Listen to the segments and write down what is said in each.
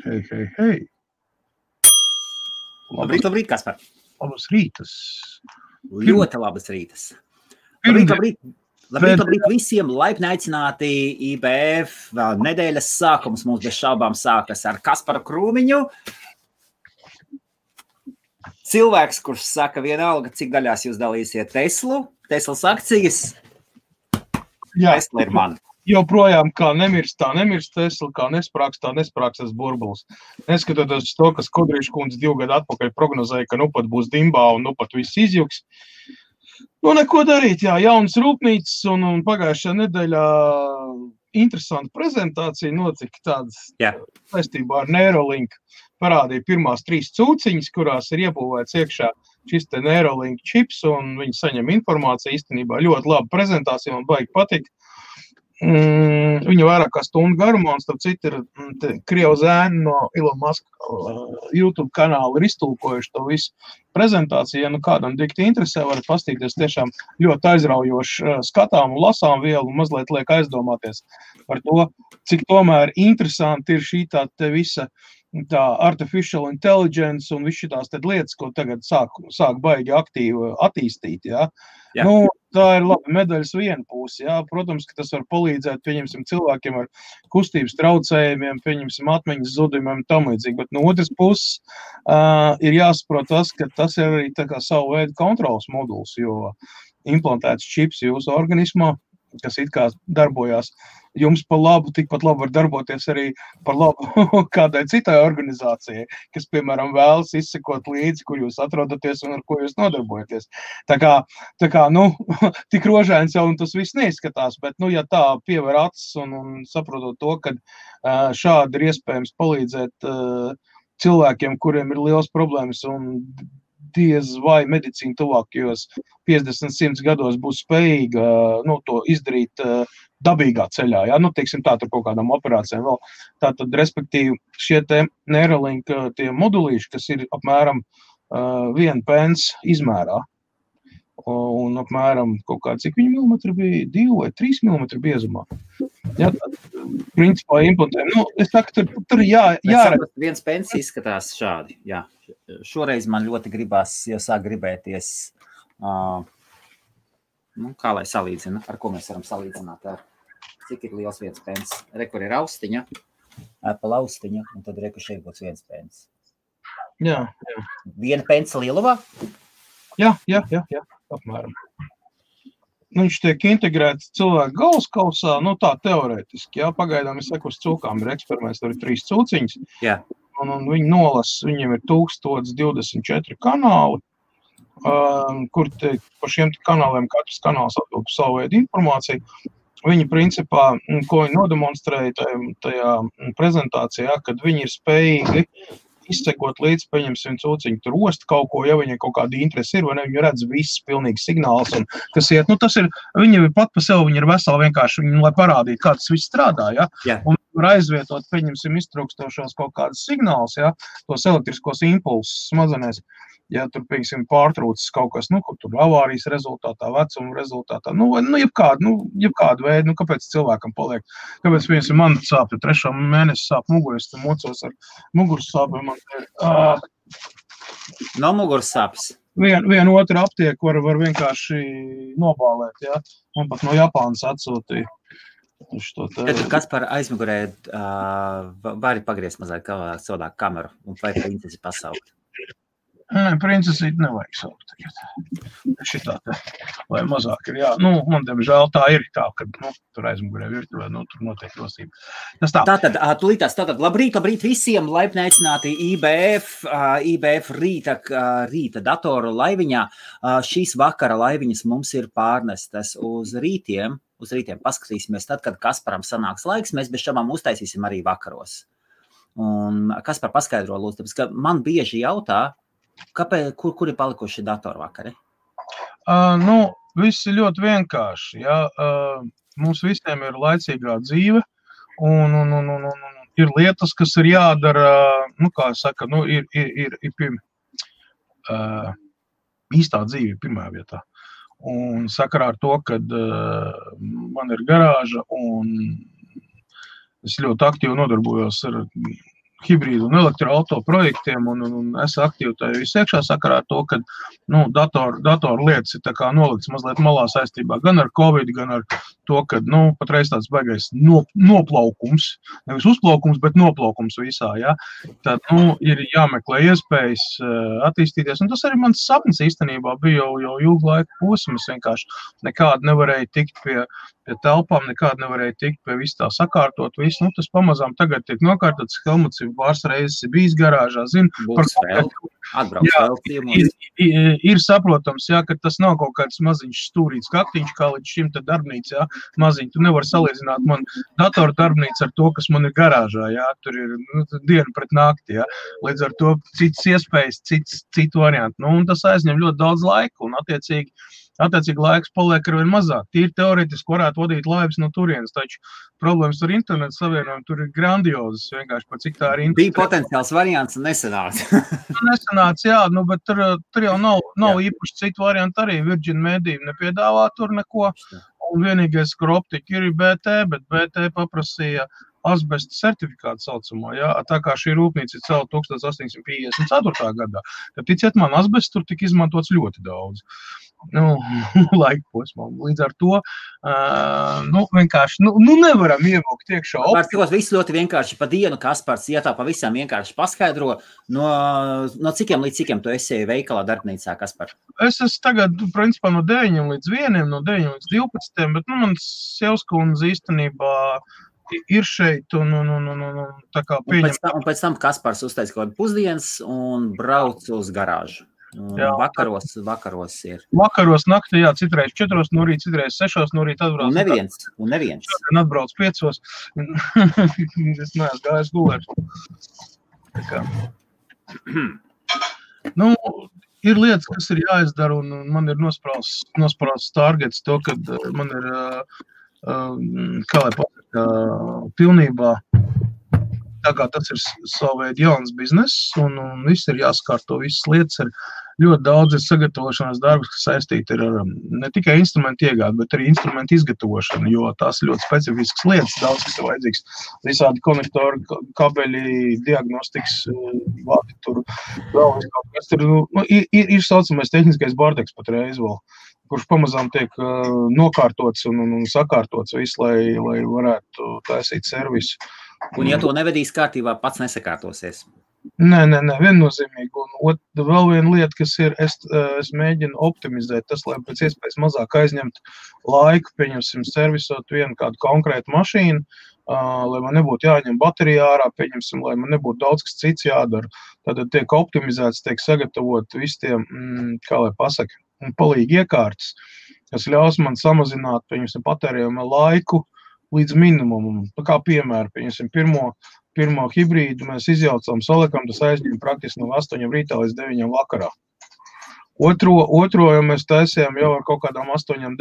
Hei. Labrīt, Kaspar. Labas rītas. Ļoti labas rītas. Labrīt visiem. Laipni aicināti IBF. Vēl nedēļas sākums mums bez šaubām sākas ar Kasparu Krūmiņu. Cilvēks, kurš saka vienalga, cik daļās jūs dalīsiet Teslas akcijas. Jā. Tesla ir man. Joprojām kā nemirst Tesla, kā nesprāks tas burbulis. Neskatoties to, kas Kodrīša kundze 2 gadu atpakaļ prognozēja, ka nu pat būs dimbā un nu pat viss izjuks. Nu, neko darīt, jā, jaunas rūpnīcas un pagājušajā nedēļā interesanta prezentācija notika tādas saistībā ar Neuralink. Parādīja pirmās 3 cūciņas, kurās ir iebūvēts iekšā šis te Neuralink čips, un viņi saņem informāciju īstenībā ļoti laba prezentācija, man baigi patika. Viņa vairāk kā stundu garumā, un starp citu ir Krievu zēni no Elon Musk YouTube kanāla ir iztulkojuši to visu prezentāciju. Ja nu kādam dikti interesē, varat pastīties tiešām ļoti aizraujoši skatām un lasām vielu, un mazliet liek aizdomāties par to, cik tomēr interesanti ir šī tā visa tā artificial intelligence un viss šitās tad lietas, ko tagad sāk baigi aktīvi attīstīt, jā. Nu, tā ir labi medaļas viena puse, jā. Protams, ka tas var palīdzēt, pieņemsim, cilvēkiem ar kustības traucējumiem, pieņemsim, atmiņas zudumiem un tam līdzīgi, bet no otras puses ir jāsaprot tas, ka tas ir arī tā kā savu veidu kontrolas moduls, jo implantēts čips jūsu organismā, kas it kā darbojās jums par labu, tikpat labi var darboties arī par labu kādai citai organizācijai, kas, piemēram, vēlas izsekot līdzi, kur jūs atrodaties un ar ko jūs nodarbojaties. Tā kā, nu, tik rožains jau un tas viss neizskatās, bet, nu, ja tā piever acis un saprotot to, ka šādi ir iespējams palīdzēt cilvēkiem, kuriem ir liels problēmas un diez vai medicīna tuvākajos 50-100 gados būs spējīga to izdarīt dabīgā ceļā, jā, nu, teiksim tā, tur kaut kādām operācijām vēl. Tātad, respektīvi, šie te Neuralink tie modulīši, kas ir apmēram 1 pence izmērā, un apmēram kaut kā, cik viņi milimetri bija, 2 vai 3 milimetri biezumā. Jā, principā implantējumi. Nu, es saku, tur jāredz. 1 pence izskatās šādi, jā. Šoreiz man ļoti gribās, jau sāk gribēties, kā lai salīdzina, ar ko mēs varam salīdzināt, cik ir liels 1 pence. Kur ir austiņa, Apple austiņa, un tad šeit būs 1 pence. Jā. 1 pence lielumā? Jā, apmēram. Viņš tiek integrēts cilvēku galvaskausā, nu tā teorētiski, jā, pagaidām es saku, uz cūkām ir eksperiments, tur ir 3 cūciņas. Jā. Un viņi nolasa, viņiem ir 1024 kanāli, kur par šiem kanāliem katrs kanāls atbild par savu veidu informāciju. Viņi principā, ko viņi nodemonstrēja tajā prezentācijā, kad viņi ir spējīgi izsekot līdz, paņemsim cūciņu, tur ost kaut ko, ja viņiem kaut kāda interesi ir, vai ne, viņi redz viss pilnīgi signāls, un kas iet, nu tas ir, viņi pat pa sev, viņi ir veseli vienkārši, viņi, lai parādītu, kā tas viss strādā, ja, un var aizvietot, pieņemsim, iztrūkstošos kaut kādas signāls, ja, tos elektriskos impulsus smadzenēs, ja tur, piemēram, pārtrūcis kaut kas, nu, tur avārijas rezultātā, vecuma rezultātā, jebkādu veidu, kāpēc cilvēkam paliek, kāpēc, piemēram, man sāp, 3. mēnesi sāp muguras, tad mocos ar muguras sāpēm, man ir... No muguras sāpes? Vienu otru aptieku var vienkārši nobālēt, ja, man pat no Japānas atsūtīja. Kaspar aizmugurē vari pagriezt mazliet savādāk kameru un vai princesi pasaukt? Nē, princesīt nevajag saukt tagad. Šitā te, lai mazāk ir, jā. Nu, man, diemžēl, tā ir tā, kad, tur aizmugurē virtuvē, tur notiek rosība. Tas tā. Tātad, labrīt visiem, laipni aicināti IBF rīta datoru laiviņā. Šīs vakara laiviņas mums ir pārnestas uz rītiem. Paskatīsimies tad, kad Kasparam sanāks laiks, mēs bez šabām uztaisīsim arī vakaros. Un Kaspar paskaidro, lūdzu, tāpēc, ka man bieži jautā, kur ir palikuši datori vakari? Viss ir ļoti vienkārši. Ja? Mums visiem ir laicīgā dzīve, un ir lietas, kas ir jādara, kā saka, ir īstā dzīve pirmā vietā. Un sakarā ar to, kad man ir garāža un es ļoti aktīvi nodarbojos ar hibrīdu un elektroauto projektiem, un es aktīvi tajā visu iekšā sakarā ar to, ka datoru lietas ir tā kā nolikts mazliet malā saistībā gan ar Covid, gan ar to, ka patreiz tāds baigais noplaukums, nevis uzplaukums, bet noplaukums visā, ja. Tad, ir jāmeklē iespējas attīstīties, un tas arī mans sapnis īstenībā bija jau ilgu laiku posms, vienkārši nekādi nevarēja tikt pie telpām, nekādi nevarēja tikt pie visu tā sakārtot, visu, tas pamazām tagad tiek nokārtots, Helmuts ir pāris reizes bijis garāžā, zinu, ir saprotams, jā, ka tas nav kaut kāds maziņš stūrīts kaktiņš, kā līdz šim te darbnīca, jā, maziņ, tu nevar salīdzināt man datoru darbnīcu ar to, kas man ir garāžā, jā, tur ir diena pret nakti, jā, līdz ar to citas iespējas, citu variantu, un tas aizņem ļoti daudz laika, un attiecīgi laiks paliek arvien mazāk. Tīri teorētiski varētu vadīt laivas no turienes, taču problēmas ar internetu savienojumu tur ir grandiozas, vienkārši par cik tā ir internetu. Bija potenciāls variants un nesanāca. Nesanāca, jā, bet tur jau nav īpaši citu variantu arī. Virgin Media nepiedāvā tur neko, un vienīgais, kur optika ir BT, bet BT paprasīja asbesta certifikātu saucamo, jā, tā kā šī rūpnīca ir celta 1854. gadā. Tad ticiet man, asbests tur tika izmantots ļoti daudz. Laika posmā. Līdz ar to, vienkārši, nevaram ievilkt iekšā. Pārstikos viss ļoti vienkārši pa dienu, Kaspars, ja tā pavisam vienkārši paskaidro, no cikiem līdz cikiem tu esi veikalā darbnīcā, Kaspar? Es esmu tagad, principā, no 9 līdz 1, no 9 līdz 12, bet, mans sievskundze īstenībā ir šeit un tā kā pieņem. Un pēc tam Kaspars uztais kaut kādu pusdienas un brauc uz garāžu. Vakaros ir. Vakaros naktī, jā, citreiz 4 no rīta, citreiz 6 no rīta atbrauc. Un neviens. Šodien atbrauc 5. Es neesmu gājis gulēt. Ir lietas, kas ir jāizdara, un man ir nosprausts targets to, kad man ir, kā lai pasaka, pilnībā tagad tas ir savu veidu jauns bizness, un viss ir jāskārto, visas lietas ir ļoti daudz sagatavošanās darbus, kas saistīti ar ne tikai instrumentu iegādi, bet arī instrumentu izgatavošanu, jo tās ir ļoti specifiskas lietas, daudz, kas ir vajadzīgs. Visādi konektori, kabeļi, diagnostikas, vadi tur, vēl kaut kas tur, ir saucamais tehniskais bardeks patreiz vēl, kurš pamazām tiek nokārtots un sakārtots visu, lai varētu taisīt servisu. Un ja to nevedīs kārtībā, pats nesakārtosies? Nē, viennozīmīgi. Un vēl viena lieta, kas ir, es mēģinu optimizēt tas, lai pēc iespējas mazāk aizņemt laiku, pieņemsim, servisot vienu kādu konkrētu mašīnu, lai man nebūtu jāņem baterija ārā, pieņemsim, lai man nebūtu daudz kas cits jādara. Tātad tiek optimizēts, tiek sagatavot visi tie, kā lai pasaka, palīgi iekārtas, kas ļaus man samazināt, pieņemsim, patērējumu laiku līdz minimumam. Tā kā piemēra, pieņemsim, pirmo hibrīdu mēs izjaucām, salikam, tas aizņem praktiski no 8 rītā līdz 9 vakarā. Otro jau mēs taisījām jau ar kaut kādām 8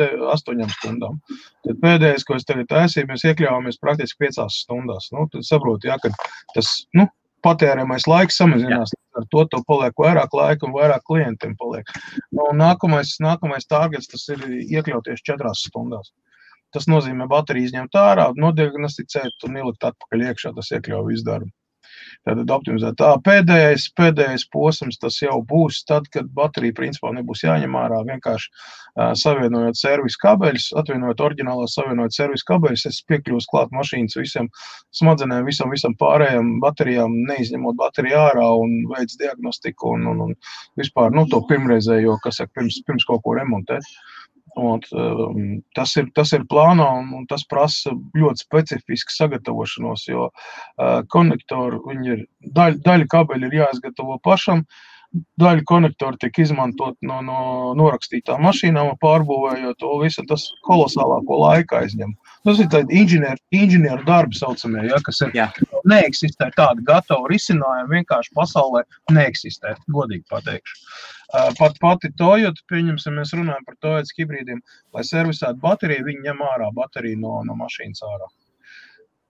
stundām. Tad pēdējais, ko es tagad taisīju, mēs iekļāvāmies praktiski 5 stundās. Tad saprotu, jā, ka tas, patērēmais laiks samazinās, ar to paliek vairāk laika un vairāk klientiem paliek. Nākamais targets, tas ir iekļauties 4 stundās. Tas nozīmē bateriju izņemt ārā, nodiagnosticēt un ielikt atpakaļ iekšā, tas iekļauj visu darbu. Tātad optimizēt. Pēdējais posms tas jau būs tad, kad baterija principā nebūs jāņem ārā, vienkārši savienojot servisu kabeļus, atvienojot oriģinālās savienojot servisu kabeļus, es piekļūstu klāt mašīnas visiem smadzenēm, visam pārējām baterijām, neizņemot bateriju ārā un veids diagnostiku un vispār, to pirmreizējo, kas saka, pirms kaut ko remontēt. Tas ir plānā un tas prasa ļoti specifisku sagatavošanos, jo konektori, viņi ir, daļa kabeļi ir jāizgatavo pašam, daļa konektori tiek izmantot no norakstītām mašīnām, pārbūvējot to visu, tas kolosālāko laiku aizņem. Tas ir tādi inženieru darbi saucamie, ja, kas ir neeksistē tādi gatavi risinājumi, vienkārši pasaulē neeksistē, godīgi pateikšu. Pati Toyota, pieņemsim, mēs runājam par Toyota hibrīdiem, lai servisētu bateriju, viņi ņem ārā bateriju no mašīnas ārā.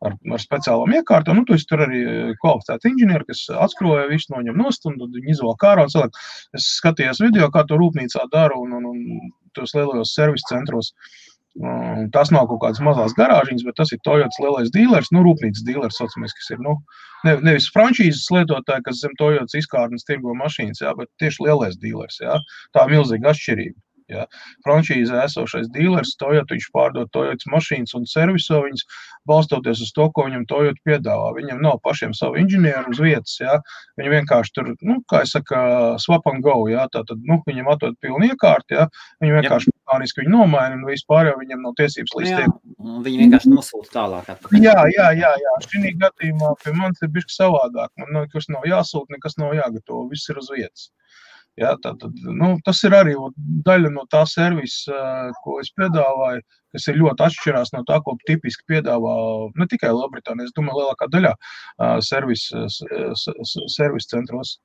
Ar speciālām iekārtām, tu esi tur arī kvalificēti inženieri, kas atskroja visu noņem nost un viņi izvēl ārā un cilvēku. Es skatījos video, kā to rūpnīcā dara un tos lielajos servisu centros. Tas nav kaut kādas mazās garāžiņas, bet tas ir Toyotas lielais dīlers, rūpnīcas dīlers, saucamies, kas ir, nevis franšīzes lietotāji, kas zem Toyotas izkārtnes tirgo mašīnas, jā, bet tieši lielais dīlers, jā. Tā milzīga atšķirība. Ja. Franšīzē esošais dīlers, Toyota, viņš pārdod Toyotas mašīnas un serviso viņas, balstoties uz to, ko viņam Toyota piedāvā. Viņam nav pašiem savu inženieru uz vietas, ja. Viņi vienkārši tur, kā es saka, swap and go, ja. Tātad, viņam atdod pilnu iekārti, ja. Viņi vienkārši mehāniski viņu nomaina un vispār jau viņam nav tiesības līdz tiem. Viņi vienkārši nosūta tālāk. Jā. Šī gadījumā pie manis ir bišķi savādāk. Man nekas nav jāsūta, nekas nav jāgatavo, viss ir uz vietas. Jā, tātad, tas ir arī daļa no tā servisa, ko es piedāvāju, kas ir ļoti atšķirās no tā, ko tipiski piedāvā ne tikai Lielbritānija, es domāju, lielākā daļā servis centros.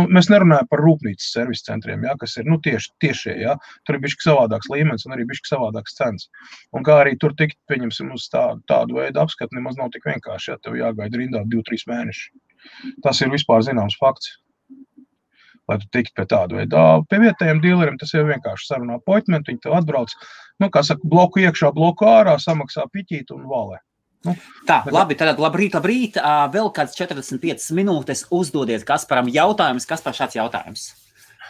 Mēs nerunājam par rūpnīcas servis centriem, jā, kas ir tiešie, jā. Tur ir bišķi savādāks līmenis un arī bišķi savādāks cenas. Un kā arī tur tikt, pieņemsim, uz tādu veidu apskatu, nemaz nav tik vienkārši, ja tev jāgaida rindā 2-3 mēneši. Tas ir vispār zināms fakts. Lai tu tikt pie tādu veidu. Pie vietējiem dīleriem tas jau vienkārši sarunā appointment, viņi tev atbrauc, kā saka, bloku iekšā, bloku ārā, samaksā piķīt un valē. Tā, labi, tad labrīt. Vēl kāds 45 minūtes uzdodiet Kasparam jautājumus. Kaspar, šāds jautājums.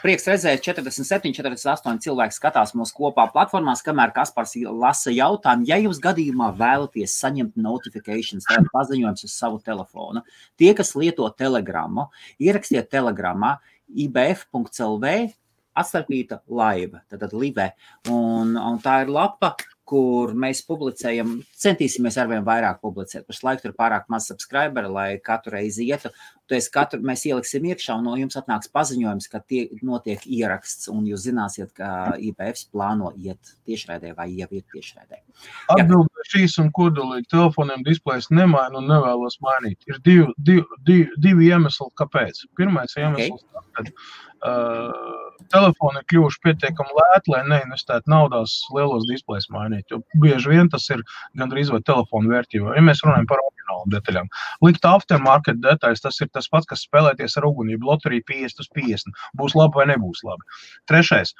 Prieks redzēt, 47, 48 cilvēki skatās mūsu kopā platformās, kamēr Kaspars lasa jautājumu. Ja jūs gadījumā vēlaties saņemt notifications, tātad paziņojums uz savu telefonu, tie, kas lieto Telegramu, ierakstiet Telegramā ibf.lv atstarpīta laiva, tātad live. Un tā ir lapa, kur mēs publicējam, centīsimies arvien vairāk publicēt. Pašlaik tur pārāk maz subscriberi, lai katru reizi ietu. Mēs ieliksim iekšā un no jums atnāks paziņojums, ka notiek ieraksts un jūs zināsiet, ka IBFs plāno iet tiešraidē vai jau iet tiešraidē. Atbilde šīs un kodolīgi telefoniem displejs nemaina un nevēlos mainīt. Ir divi iemesli, kāpēc. Pirmais iemesls, kad telefoni ir kļuvuši pietiekami lēti, lai neinvestētu naudās lielos displejs mainīt, jo bieži vien tas ir gandrīz vai telefonu vērtība. Ja mēs runājam par oriģinālu detaļām. Likt aftermarket detaļas, tas ir tas pats, kas spēlēties ar ugunību, loteriju 50/50. Būs labi vai nebūs labi. Trešais.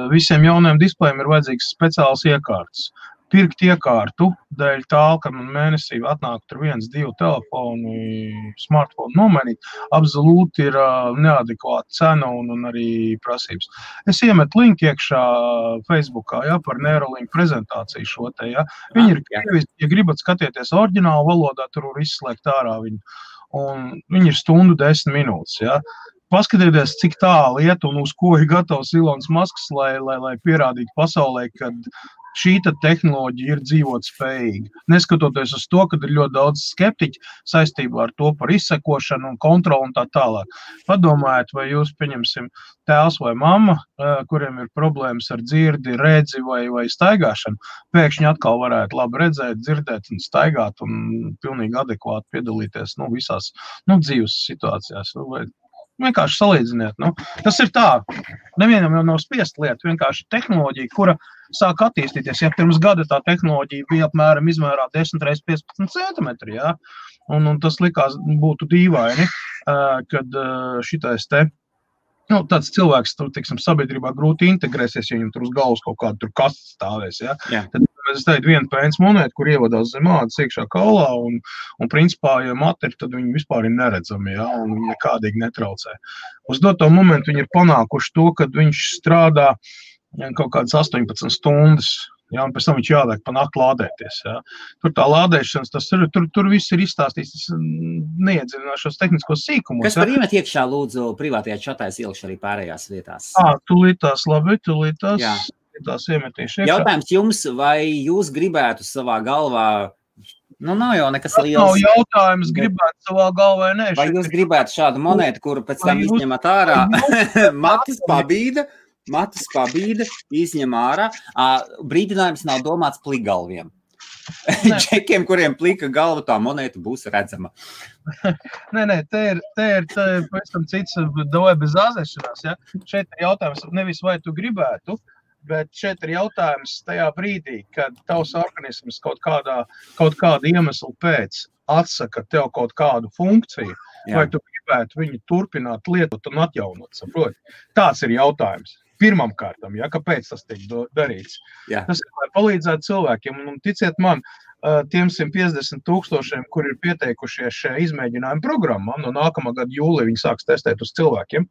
Visiem jaunajiem displejiem ir vajadzīgs speciāls iekārtas. Pirkt iekārtu dēļ tā, ka man mēnesī atnāk tur 1-2 telefoni, smartphone nomainīt, absolūti ir neadekvāta cena un arī prasības. Es iemetu linku iekšā Facebookā, ja, par Neuralink prezentāciju šo te, ja. Viņi ir krieviski, ja gribat skatieties oriģinālu valodā, tur var izslēgt ārā viņu. Un viņi ir 1:10 minūtes, ja. Paskatieties, cik tālu iet un uz ko ir gatavs Ilons Masks, lai pierādītu pasaulē, kad šī tehnoloģija ir dzīvot spējīga. Neskatoties uz to, ka ir ļoti daudz skeptiķi saistībā ar to par izsekošanu un kontroli un tā tālāk. Padomājiet, vai jūs, pieņemsim, tēvs vai mamma, kuriem ir problēmas ar dzirdi, redzi vai staigāšanu, pēkšņi atkal varētu labi redzēt, dzirdēt un staigāt un pilnīgi adekvāti piedalīties visās dzīves situācijās. Vienkārši salīdziniet. Tas ir tā. Nevienam jau nav spiest lieta. Vienkārši tehnoloģija, kura sāk attīstīties. Ja pirms gada tā tehnoloģija bija apmēram izmērā 10x15 centimetri, ja? Un tas likās būtu dīvaini, kad šitais te, tāds cilvēks tur, tiksim, sabiedrībā grūti integrēsies, ja viņam tur uz galvas kaut kādu tur kastu stāvēs, ja? Tad es teicu, viena pēns monēta, kur ievadās zem ādas iekšā kaulā, un principā, ja materi, tad viņi vispār ir neredzami, ja, un viņi nekādīgi netraucē. Uz doto momentu viņi ir panākuši to, kad viņš strādā kaut kādas 18 stundas, ja, un pēc tam viņš jāliek pa nakti lādēties, ja. Tur tā lādēšanas, tur viss ir izstāstīts, tas neiedzināšos tehniskos sīkumos. Kas par iemet iekšā, lūdzu, privātajā čatā es ielikšu arī pārējās vietās? Tūlītās, labi, tās iemetīšu iekšā. Jautājums jums, vai jūs gribētu savā galvā, nav jau nekas liels. Nav jautājums, gribētu savā galvā, nē. Vai jūs gribētu šādu monētu, kuru pēc tam izņemat ārā? Matus pabīda, izņem ārā. Brīdinājums nav domāts plikgalviem. Čekiem, kuriem plika galva, tā monēta būs redzama. Nē, te ir pavisam cits davai bez āzēšanās, ja? Šeit ir jautājums nevis vai tu gribētu, bet šeit ir jautājums tajā brīdī, kad tavs organisms kaut kāda iemesla pēc atsaka tev kaut kādu funkciju, vai tu gribētu viņu turpināt lietot un atjaunot, saproti? Tāds ir jautājums. pirmam kārtam, ja, kāpēc tas tiek darīts. Jā. Tas ir, lai palīdzētu cilvēkiem, un ticiet man, tiem 150 000, kur ir pieteikušies šajā izmēģinājuma programmā, no nākamā gada jūlija viņi sāks testēt uz cilvēkiem.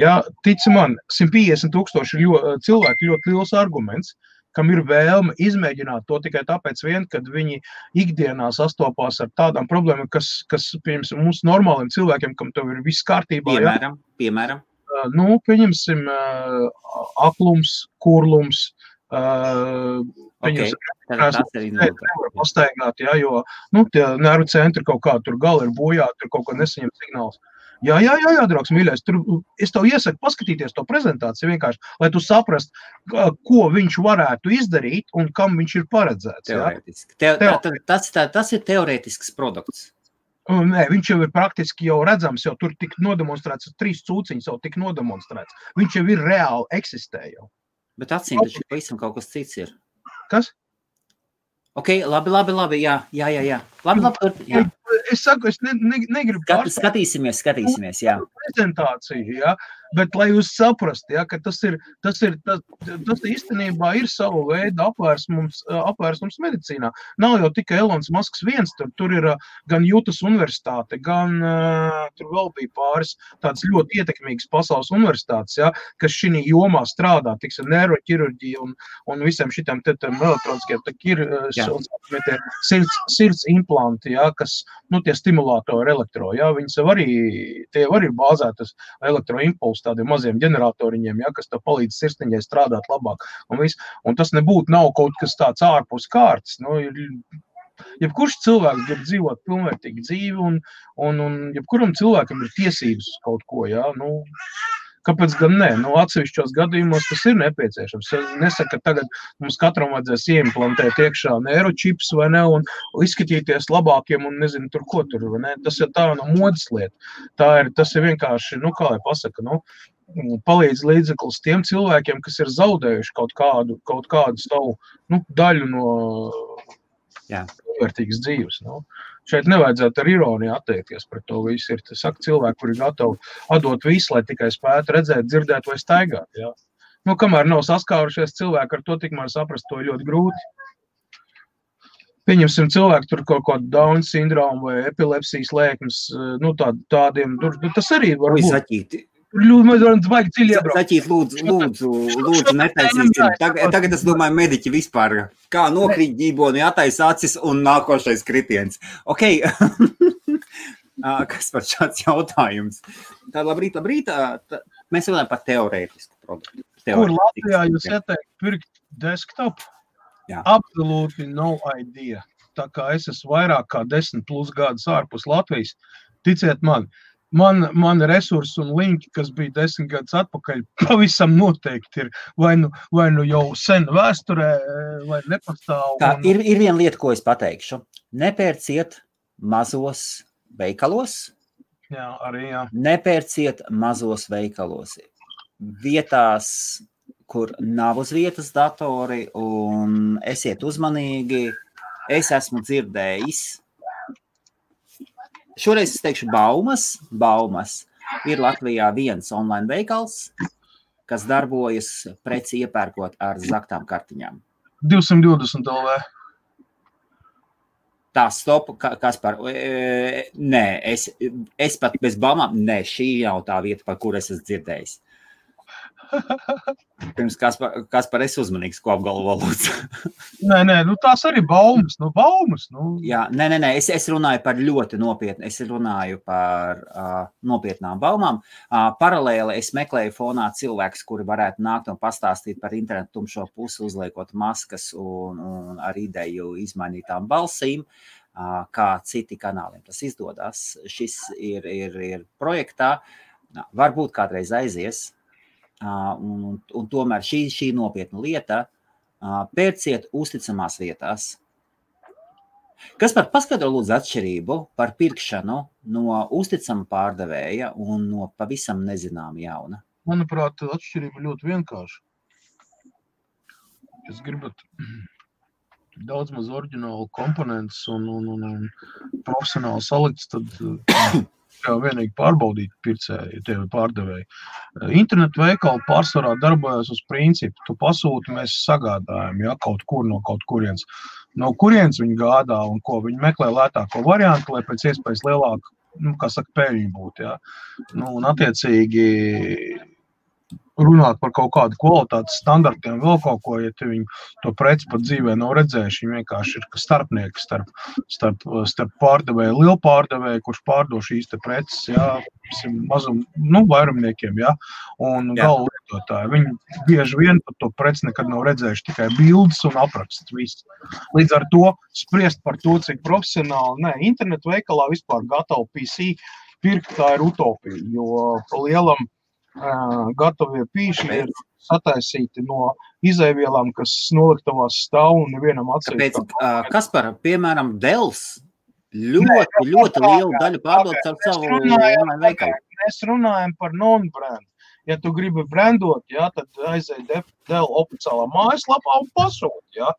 Ja, tici man, 150 000 cilvēki ļoti liels arguments, kam ir vēlme izmēģināt to tikai tāpēc vien, kad viņi ikdienā sastopās ar tādām problēmām, kas pieņemsim, mums normāliem cilvēkiem, kam tev ir viss kārtībā. Piemēram. Nu, pieņemsim, aklums, kurlums, nevar pastaigāt, ja, jo, nu, tie nervu centri kaut kā tur gali ir bojāti, tur kaut ko nesaņem signāls. Jā, draugs, mīļais, tur es tev iesaku paskatīties to prezentāciju vienkārši, lai tu saprast, ko viņš varētu izdarīt un kam viņš ir paredzēts. Teorētiski. Tas ir teorētisks produkts. Nē, viņš jau ir praktiski jau redzams, jau tur tik nodemonstrēts, 3 cūciņas jau tik nodemonstrēts. Viņš jau ir reāli eksistē jau. Bet acīm taču pavisam kaut kas cits ir. Kas? Ok, labi, jā. Labi, jā. Es saku, es negribu Skatīsimies, jā. Prezentāciju, ja, bet lai jūs saprast, ja, ka tas īstenībā ir savu veidu apvērsums medicīnā. Nav jau tikai Elons Musks viens, tur ir gan Jutas universitāte, gan tur vēl bija pāris tādas ļoti ietekmīgas pasaules universitātes, ja, kas šī jomā strādā, tiksim, neiroķirurģija un visiem šitiem elektroniskiem, sirds implanti, ja, kas, nu, tie stimulātori elektro, ja, viņas tie arī bāzētas elektroimpulsu tādiem maziem ģeneratoriņiem, ja, kas tev palīdz sirsniņai strādāt labāk. Un tas nav kaut kas tāds ārpus kārtas. Nu, jebkurš cilvēks grib dzīvot pilnvērtīgu dzīvi un jebkuram cilvēkam ir tiesības uz kaut ko, ja, nu, kāpēc gan ne? Nu, atsevišķos gadījumos tas ir nepieciešams. Es nesaku, ka tagad mums katram vajadzēs ieimplantēt iekšā neiročips vai ne, un izskatīties labākiem un nezinu tur, ko tur, vai ne? Tas ir tā no modas lieta. Tas ir vienkārši, nu, kā lai pasaka, nu, palīdz līdzeklis tiem cilvēkiem, kas ir zaudējuši kaut kādu savu, nu, daļu no vērtīgas dzīves, nu. Šeit nevajadzētu ar ironiju attiekties pret to visu. Ir cilvēki, kuri ir gatavi atdot visu, lai tikai spētu redzēt, dzirdēt vai staigāt. Ja? Nu, kamēr nav saskārušies cilvēki ar to, tikmēr saprast, to ir ļoti grūti. Pieņemsim cilvēku tur kaut kādu Down sindromu vai epilepsijas lēkmes, nu, tādiem, tas arī var būt. Zaķīti, lūdzu, netaisīsim. Tagad es domāju, mediķi vispār, kā nokrīt ģīboni, attaisa acis un nākošais kritiens. Ok, kas par šāds jautājums? Tā labrīt, mēs runājam par teorētisku produktu. Kur Latvijā jūs ieteikt pirkt desktop? Jā. Absolutely no idea. Tā kā es esmu vairāk kā 10+ gadus ārpus Latvijas, ticiet man resursi un linki, kas bija 10 gadus atpakaļ, pavisam noteikti ir vai nu jau sen vēsturē, vai nepastāv. Tā ir viena lieta, ko es pateikšu. Nepērciet mazos veikalos. Jā, arī jā. Nepērciet mazos veikalos. Vietās, kur nav uz vietas datori, un esiet uzmanīgi. Es esmu dzirdējis. Šoreiz es teikšu baumas. Ir Latvijā viens online veikals, kas darbojas preci iepērkot ar zaktām kartiņām. 220 LV. Tā, stop, kas par... Nē, es pat bez baumām, nē, šī jau tā vieta, par kur es esmu dzirdējis. Pirms kas par es uzmanīgs, ko apgalvo lūdzu. Nē, nu tās arī baumas. Jā, nē, es runāju par ļoti nopietnu, es runāju par nopietnām baumām. Paralēli es meklēju fonā cilvēkus, kuri varētu nākt un pastāstīt par internetu tumšo pusi, uzliekot maskas un ar ideju izmainītām balsīm, kā citi kanāliem tas izdodas. Šis ir projektā, varbūt kādreiz aizies. Un tomēr šī nopietna lieta, pērciet uzticamās vietās. Kas par paskaidro lūdzu atšķirību par pirkšanu no uzticama pārdevēja un no pavisam nezināma jauna? Manuprāt, atšķirība ļoti vienkārša. Jūs gribat daudz maz oriģinālu komponentus un profesionāli salikts, tad vienīgi pārbaudīt pircēji, tie pārdevēji. Internetu veikali pārsvarā darbojas uz principu. Tu pasūti, mēs sagādājam, ja, kaut kur no kaut kurienes. No kurienes viņi gādā un ko viņi meklē lētāko variantu, lai pēc iespējas lielāku, kā saka, peļņu būtu, ja. Un attiecīgi runāt par kaut kādu kvalitātes standartiem, vēl kaut ko, ja viņi to preci pat dzīvē nav redzējuši, viņi vienkārši ir starpnieki starp pārdevēju, lielu pārdevēju, kurš pārdo šīs te preces, jā, mazum, vairumniekiem, jā, un galu lietotāji. Viņi bieži vien pat to preci nekad nav redzējuši, tikai bildes un apraksts, viss. Līdz ar to spriest par to, cik profesionāli, internetu veikalā vispār gatavu PC pirkt, tā ir utopija, jo pa lielam gatavie pīši ir sataisīti no izēvielām, kas noliktavās stāv un nevienam atsevišķi. Tāpēc, Kaspar, piemēram, Dells ļoti lielu daļu pārdot ar savu online veikalu. Mēs runājam par non-brand. Ja tu gribi brandot, jā, tad aizēj Dell oficiālā mājaslapā un pasūt, jā.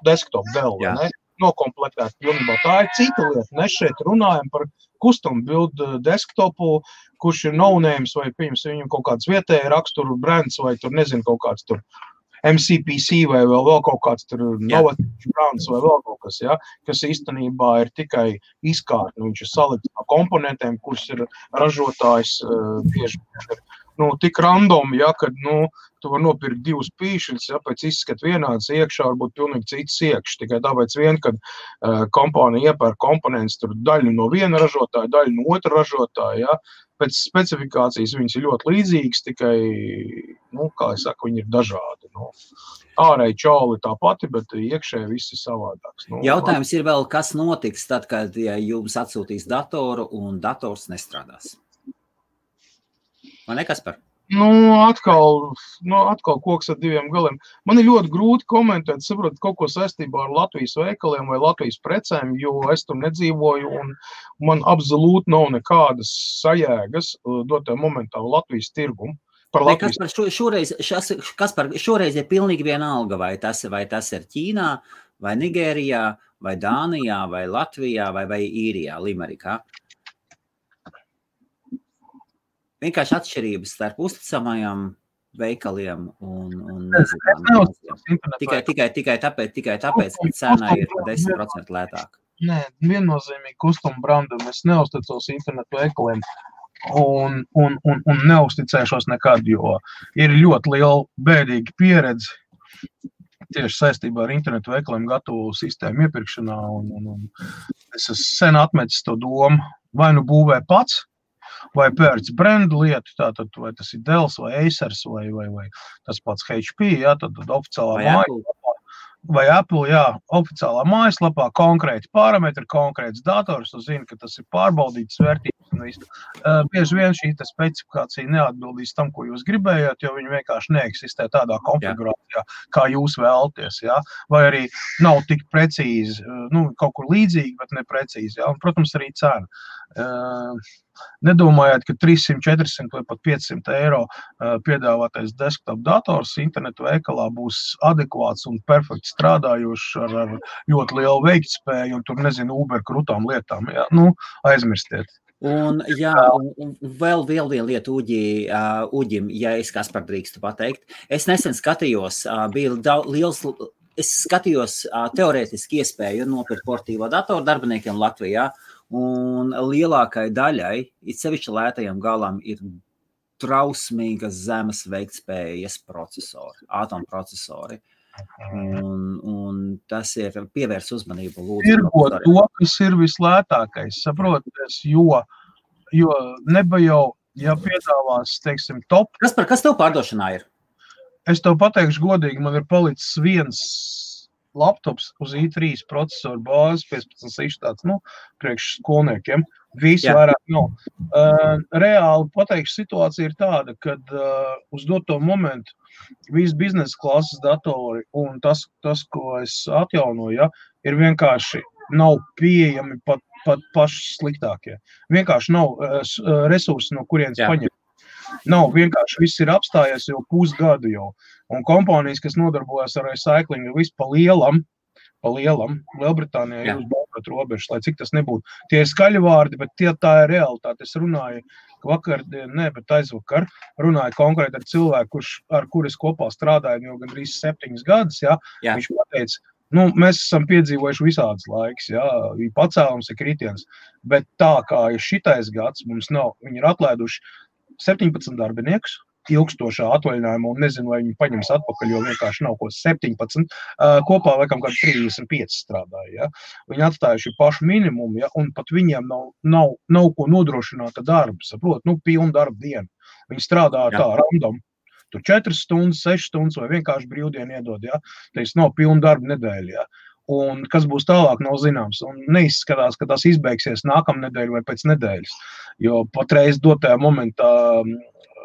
Desktop Dell, ne? Nokomplektēt pilnībā. Tā ir cita lieta. Mēs šeit runājam par custom build desktopu, kurš ir no-names vai viņam kaut kāds vietēji raksturu brands vai tur nezinu kaut kāds tur MCPC vai vēl kaut kāds tur novatīvs brands vai vēl kaut kas, ja, kas īstenībā ir tikai izkārtni. Viņš ir salikts no komponentiem, kurš ir ražotājs bieži tik random, ja, kad, tu var nopirkt divus pīšļus, ja, pēc izskat vienāds iekšā, varbūt pilnīgi cits iekš, tikai tāpēc vien, kad kompānija iepērk komponents, tur daļu no viena ražotāja, daļu no otra ražotāja, ja, pēc specifikācijas viņas ir ļoti līdzīgas, tikai, kā es saku, viņi ir dažādi, Ārēji čauli tā pati, bet iekšēji viss ir savādāks. Jautājums ir vēl, kas notiks tad, kad jums atsūtīs datoru un dators nestrādās? Vai ne, Kaspar? Atkal koks ar diviem galiem. Man ir ļoti grūti komentēt, saprot, kaut ko saistībā ar Latvijas veikaliem vai Latvijas precēm, jo es tur nedzīvoju un man absolūti nav nekādas sajēgas dotā momentā Latvijas tirgumu. Kaspar, šoreiz ir pilnīgi vienalga, vai tas ir Ķīnā, vai Nigērijā, vai Dānijā, vai Latvijā, vai Īrijā, Limerikā. Vienkārši atšķirības starp uzticamajām veikaliem un tikai tāpēc, ka cena ir 10% lētāka. Nē, viennozīmīgi custom brandam es neuzticos internetu veikaliem un neuzticēšos nekad, jo ir ļoti liela bēdīga pieredze tieši saistībā ar internetu veikaliem gatavu sistēmu iepirkšanā un es esmu sen atmetis to domu, vai būvē pats, vai pērc brandu lietu, tātad vai tas ir Dells vai Acers vai tas pats HP, jā, tad oficiālā mājaslapā, vai Apple, jā, oficiālā mājaslapā, konkrēti parametri, konkrēts dators, tu zini, ka tas ir pārbaudītas vērtības un viss. Bieži vien šī specifikācija neatbildīs tam, ko jūs gribējāt, jo viņi vienkārši neeksistē tādā konfigurācijā, kā jūs vēlaties, jā, vai arī nav tik precīzi, kaut kur līdzīgi, bet neprecīzi, jā, un, protams, arī cena. Nedomājiet, ka 300, 400 vai pat 500 eiro piedāvātais desktop dators internetu veikalā būs adekvāts un perfekti strādājošs ar ļoti lielu veiktspēju un tur, nezinu, Uber krutām lietām. Jā, aizmirstiet. Un vēl viena lieta Uģim, ja es Kaspar drīkstu pateikt. Es nesen skatījos, es skatījos teorētiski iespēju nopirkt portīvo datoru darbiniekiem Latvijā, un lielākai daļai, it sevišķi lētajiem galam, ir trausmīgas zemes veiktspējas procesori, atomprocesori. Un tas ir pievērs uzmanību lūdzu. Tirgot to, kas ir vislētākais, saproties, jo neba jau, ja piedāvās, teiksim, top. Kas tev pārdošanā ir? Es tev pateikšu godīgi, man ir palicis viens laptops uz i3 procesoru bāzes, 15 tāds, priekš skolniekiem. Visu vairāk nav. Reāli pateikšu, situācija ir tāda, kad uz doto momentu visi biznesa klases datori un tas, ko es atjaunoju, ja, ir vienkārši nav pieejami pat paši sliktākie. Vienkārši nav resursi, no kurienes paņemt. Nav, vienkārši viss ir apstājies jau pusgadu jau. Un kompānijas, kas nodarbojas ar recyclingu, visu pa lielam, pa lielam. Lielbritānijā ir uz balkot robežas, lai cik tas nebūtu. Tie ir skaļi vārdi, bet tā ir realitāte. Es runāju vakardien, bet aizvakar runāju konkrēti ar cilvēku, ar kur es kopā strādāju jau gandrīz 7 gadus. Jā. Viņš pateica, mēs esam piedzīvojuši visādas laiks, jā, ir pacēlums, ir kritiens, bet tā kā ir šitais gads, mums nav, viņi ir atlaiduši 17 darbiniekus, ilgstošā atvaļinājumā, un nezinu, vai viņi paņems atpakaļ, jo vienkārši nav ko 17, kopā laikam kādi 35 strādāja, ja. Viņi atstājuši pašu minimumu, ja, un pat viņiem nav ko nodrošināta darba, saprot, pilna darba diena. Viņi strādā tā random, tur 4 stundas, 6 stundas, vai vienkārši brīvdienu iedod, ja, tas nav pilna darba nedēļa, ja. Un kas būs tālāk, nav zināms, un neizskatās, ka tas izbeigsies nākamnedēļ vai pēc nedēļas, jo patreiz dotajā momentā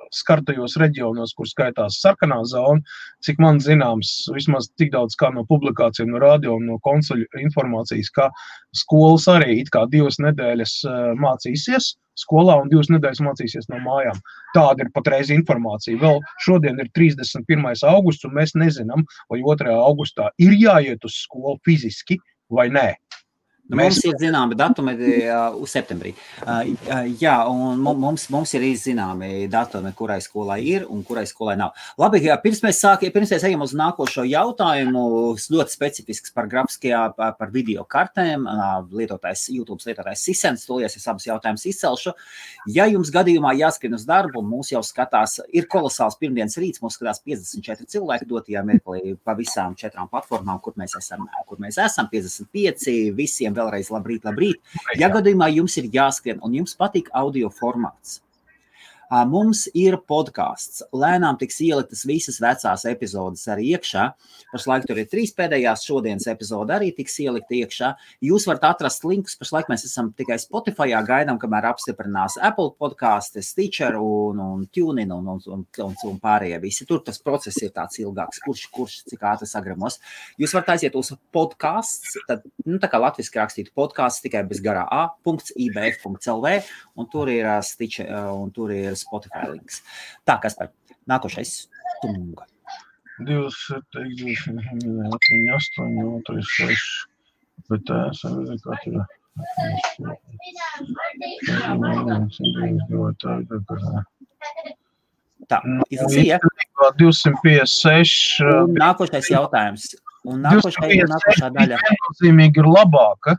skartajos reģionos, kur skaitās sarkanā zona, cik man zināms, vismaz tik daudz kā no publikācijām, no radio un no konsuļu informācijas, ka skolas arī it kā 2 nedēļas mācīsies skolā un 2 nedēļas mācīsies no mājām. Tāda ir patreiz informācija. Vēl šodien ir 31. augusts, un mēs nezinām, vai 2. augustā ir jāiet uz skolu fiziski vai nē. Mums ir zināmi datumi uz septembrī. Jā, un mums ir zināmi datumi, kurai skolai ir un kurai skolai nav. Labi, pirms mēs ejam uz nākošo jautājumu, ļoti specifisks par par video kartēm, YouTube lietotājs Sisens, tolies es abus jautājumus izcelšu. Ja jums gadījumā jāskrien uz darbu, mūs jau skatās, ir kolosāls pirmdienas rīts, mūs skatās 54 cilvēki dotajā mirklī pa visām 4 platformām, kur mēs esam 55, visiem vēlreiz labrīt. Ja gadījumā jums ir jāskrien un jums patīk audio formāts, mums ir podcasts. Lēnām tiks ieliktas visas vecās epizodes arī iekšā. Pašlaik tur ir 3 pēdējās, šodienas epizode arī tiks ielikta iekšā. Jūs varat atrast linkus, pašlaik mēs esam tikai Spotifyā, gaidām, kamēr apstiprinās Apple podcasts, Stitcher un TuneIn un pārējie visi. Tur tas process ir tāds ilgāks, kurš cik ātri sagramos. Jūs varat aiziet uz podcasts, tad, tā kā latviski rakstītu podcasts, tikai bez garā a.ibf.lv, un tur ir Stitcher, un tur ir Spotify links. Tā, Kaspar, nākošais Tunga. 27, 8, 36, bet tā, izlasīja. 256. Nākošais jautājums. Un nākošā daļa. Viennozīmīgi ir labāka.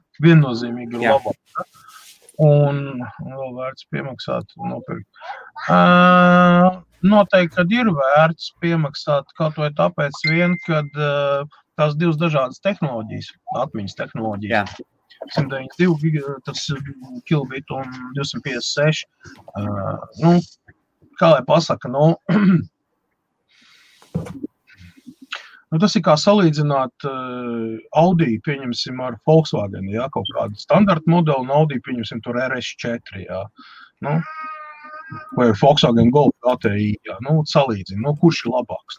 Un vēl vērts piemaksāt nopirkt. Noteikti, kad ir vērts piemaksāt kaut vai tāpēc vien, kad tās 2 dažādas tehnoloģijas, atmiņas tehnoloģijas. 192 tas kilobit un 256. Kā lai pasaka, tas ir kā salīdzināt Audi, pieņemsim, ar Volkswagen, jā, kaut kādu standarta modeli, un Audi, pieņemsim, tur RS4, jā, vai Volkswagen Golf GTI, jā, salīdzina, kurš ir labāks,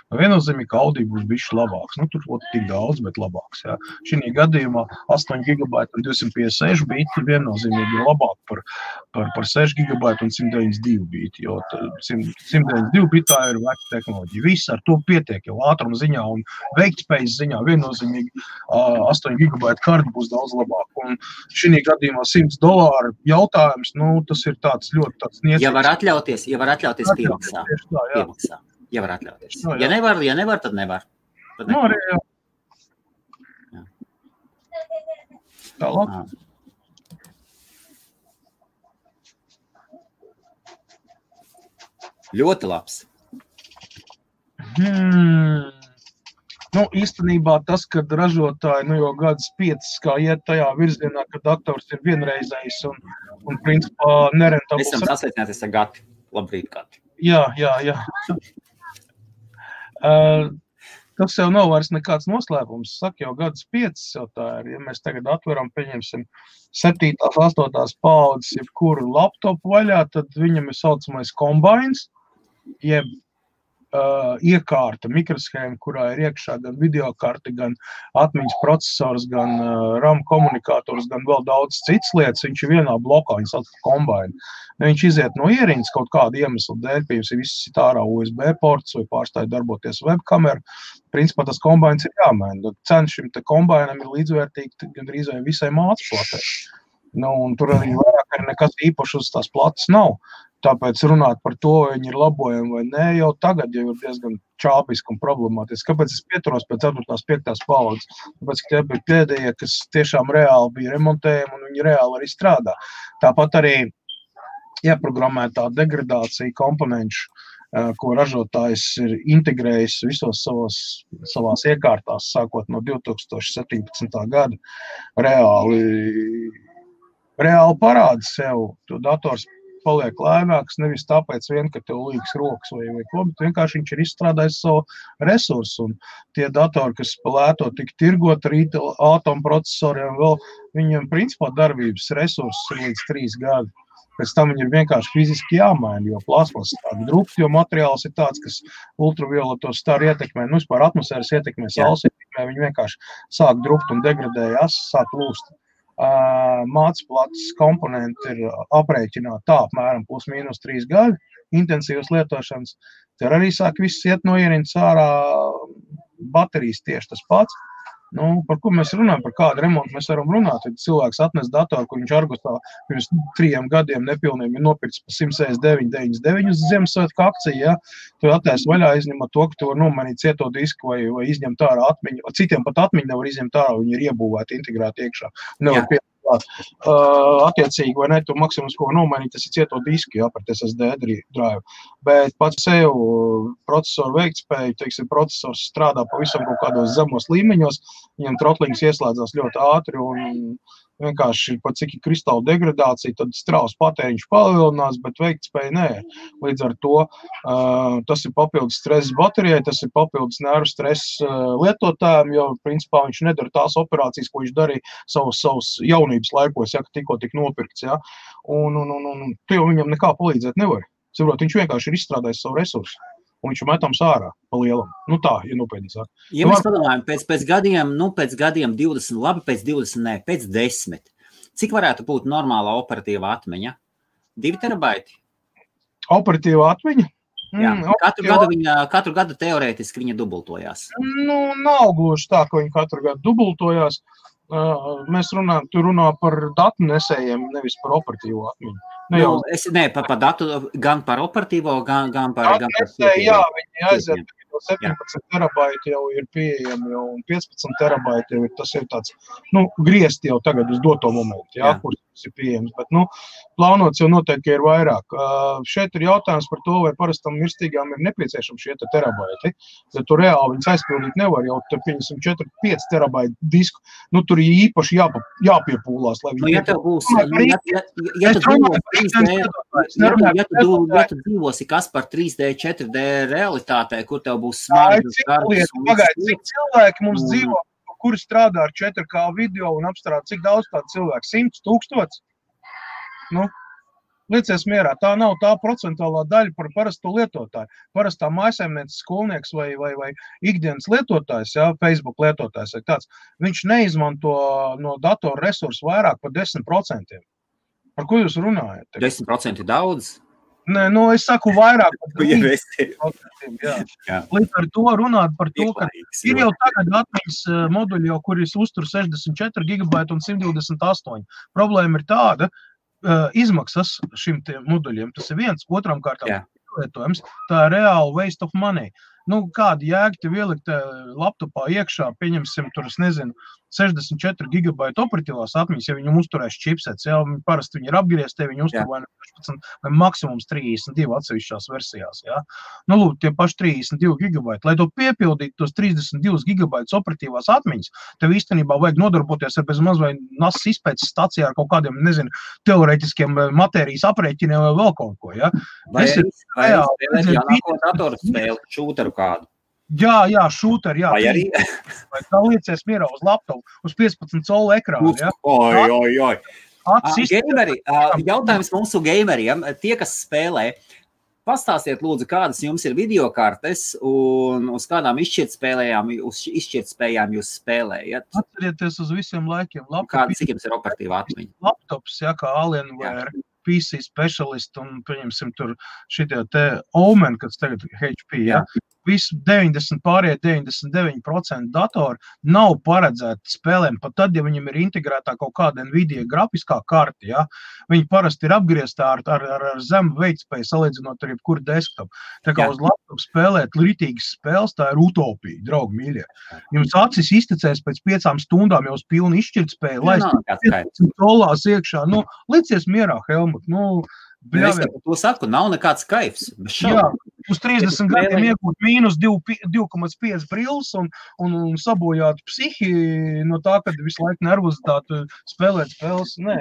Viennozīmīgi, ka Audi būs bišķi labāks, tur tik daudz, bet labāks, jā. Šī gadījumā 8 GB un 256 biti viennozīmīgi ir labāk par 6 GB un 192 biti, jo 192 bitā ir veca tehnoloģija. Viss ar to pietiek, jau ātruma ziņā un veiktspējas ziņā viennozīmīgi 8 GB karti būs daudz labāk. Un šī gadījumā $100 jautājums, tas ir tāds ļoti tāds niecīgs. Ja var atļauties piemaksā. Ja var atļauties. Ja nevar, tad nevar. Arī, jā. Tālāk. Ļoti labs. Īstenībā tas, kad ražotāji, jau gadus 5, kā iet tajā virzienā, ka dators ir vienreizējs un principā nerentabls. Esam sasveicināties ar Gati. Labrīt, Gati. Jā. Tas jau nav vairs nekāds noslēpums. Saka, jau gadus 5 jau tā ir. Ja mēs tagad atveram, pieņemsim 7. 8. paudzes jebkuru laptopu vaļā, tad viņam ir saucamais kombines, jeb iekārta, mikroshēma, kurā ir iekšā gan videokarte, gan atmiņas procesors, gan RAM komunikators, gan vēl daudz citas lietas. Viņš ir vienā blokā, viņš sauc par kombainu. Viņš iziet no ierīnas kaut kādu iemeslu dēļ, piemēram, ir viss ārā USB ports vai pārstāja darboties webkamera. Principā tas kombains ir jāmaina. Cena šim te kombainam ir līdzvērtīga gandrīz vai visai mācplatē. Un tur arī vairāk arī nekas īpaši uz tās plates nav. Tāpēc runāt par to, vai viņi ir labojami vai nē, jau tagad jau ir diezgan čāpiski un problemātiski. Kāpēc es pieturos pēc 4. 5. paudzes? Tāpēc, ka tie bija pēdējie, kas tiešām reāli bija remontējami un viņi reāli arī strādā. Tāpat arī ieprogrammētā degradācija komponenšu, ko ražotājs ir integrējis visos savās iekārtās, sākot no 2017. gada, reāli parāda sev. To dators paliek lēnāks, nevis tāpēc vien, ka tev līgas rokas vai ko, bet vienkārši viņš ir izstrādājis savu resursu. Un tie datori, kas lēto tik tirgot ar atomprocesoriem, vēl viņiem principā darbības resursus ir līdz 3 gadi. Pēc tam viņi ir vienkārši fiziski jāmaina, jo plasmas tāda drupta, jo materiāls ir tāds, kas ultravioleto staru ietekmē, vispār atmosfēras ietekmē, saules ietekmē, viņi vienkārši sāk drupt un degradējas, sāk lūst. Mācplates komponenti ir aprēķināti tā apmēram plus-mínus 3 gadi intensīvas lietošanas. Tur arī sāk viss iet no ierīnas ārā, baterijas tieši tas pats. Par ko mēs runājam, par kādu remontu mēs varam runāt. Ja cilvēks atnes datoru, kur viņš Argosā pirms 3 gadiem nepilniem ir nopircis par 169,99 uz Ziemassvētku akciju, ja? Tu attais vaļā, izņemot to, ka tu var nomainīt cieto disku vai izņemt ārā atmiņu. Citiem pat atmiņu nevar izņemt ārā, viņi ir iebūvēti, integrēti iekšā. Nevar piedāvāt. Attiecīgi, vai ne, tu maksimums, ko nomainīt, tas ir cieto disku, par SSD drive. Bet pats sev procesoru veiktspēju, teiksim, procesors strādā pavisam kaut kādos zemos līmeņos, viņam trotlings ieslēdzās ļoti ātri un vienkārši pat cik ir kristāla degradācija, tad strauss patēriņš palielinās, bet veiktspēja nē. Līdz ar to tas ir papildus stress baterijai, tas ir papildus nervu stress lietotājiem, jo principā viņš nedara tās operācijas, ko viņš darīja savus jaunības laikos, ja, ka tikko tik nopirkts. Ja. Un tu jau viņam nekā palīdzēt nevar. Saprot, viņš vienkārši ir izstrādājis savu resursu. Un viņš metams ārā pa lielam. Tā, ja nopietni sāk. Ja mēs padomājam, pēc gadiem 20, labi, pēc 20, nē, pēc 10. Cik varētu būt normāla operatīva atmiņa? 2 terabaiti? Operatīva atmiņa? Jā, katru gadu teorētiski viņa dubultojās. Nav gluži tā, ka viņa katru gadu dubultojās. Mēs runā par datu nesējiem, nevis par operatīvo atmiņu. Par datu, gan par operatīvo, gan par nesēju, jā, viņi aiziet, 17 terabaiti jau ir pieejami, un 15 terabaiti jau ir, tas ir tāds, griezti jau tagad uz doto momentu, kur tas ir pieejams, bet, plānots jau noteikti ir vairāk. Šeit ir jautājums par to, vai parastam mirstīgām ir nepieciešami šie terabaiti, bet tu reāli viņas aizpildīt nevar, jau te pieņemsim 4-5 terabaitu disku, tur ir īpaši jāpiepūlās, lai viņi... Ja tev būs, ja tu dzīvosi kas par 3D, 4D realitātē, kur tev būs smagas garas. Cik cilvēki mums dzīvo, kuri strādā ar 4K video un apstrādā, cik daudz tādu cilvēku? 100 000? Liecies mierā, tā nav tā procentuālā daļa par parasto lietotāju. Parastā mājsaimnieces skolnieks vai ikdienas lietotājs, Facebook lietotājs vai tāds, viņš neizmanto no datora resursu vairāk par 10%. Par ko jūs runājat? 10% ir daudz? Nē, es saku vairāk par 10%. Līdz ar to runāt par to, ka ir jau tagad atmiņas moduļi, kuris uztur 64 GB un 128. Problēma ir tāda, izmaksas šim moduļiem, tas ir viens, otram kārtām lietojums, tā ir reāli waste of money. Kāda jēga tev ielikt laptopā iekšā, pieņemsim tur, 64 GB operatīvās atmiņas, ja viņam uzturēs čipsets, parasti viņi ir apgriezti, viņi uztur vai 16 vai maksimums 32 atsevišķās versijās, lūk, tie paši 32 GB. Lai to piepildītu tos 32 GB operatīvās atmiņas, tev īstenībā vajag nodarboties ar bezmaz vai NAS izpētes stacijā ar kaut kādiem, teorētiskiem matērijas aprēķiniem vai vēl kaut ko, Vai jaunāko datoru spēli, šūteru kādu? Jā, šūteri, jā. Vai arī? Vai tā liecies mierā uz laptopu, uz 15 colu ekrānu, Gameri, jautājums mūsu gameriem, tie, kas spēlē, pastāstiet, lūdzu, kādas jums ir videokartes un uz kādām izšķirtspējām jūs spēlējat? Atcerieties uz visiem laikiem. Cik jums ir operatīva atmiņa? Laptops, ja, kā Alienware, PC Specialist un, pieņemsim, tur šitie te Omen, kas tagad HP, ja. Visu 99% datoru nav paredzēti spēlēm, pat tad, ja viņam ir integrētā kaut kāda Nvidia grafiskā karta, ja, viņi parasti ir apgrieztā ar zemu veiktspēju, salīdzinot ar jebkuru desktop. Tā kā uz laptopu spēlēt ritīgas spēles, tā ir utopija, draugi mīļie. Jums acis iztecēs pēc 5 stundām jau uz pilnu izšķirtspēju, lai dolās iekšā, nu, licies mierā, Helmut, nu, Es to saku, nav nekāds kaifs. Jā, uz 30 gadiem iegūt mīnus 2,5 brilles un sabojāt psihi no tā, kad visu laiku nervozitāti spēlēt spēles. Nē.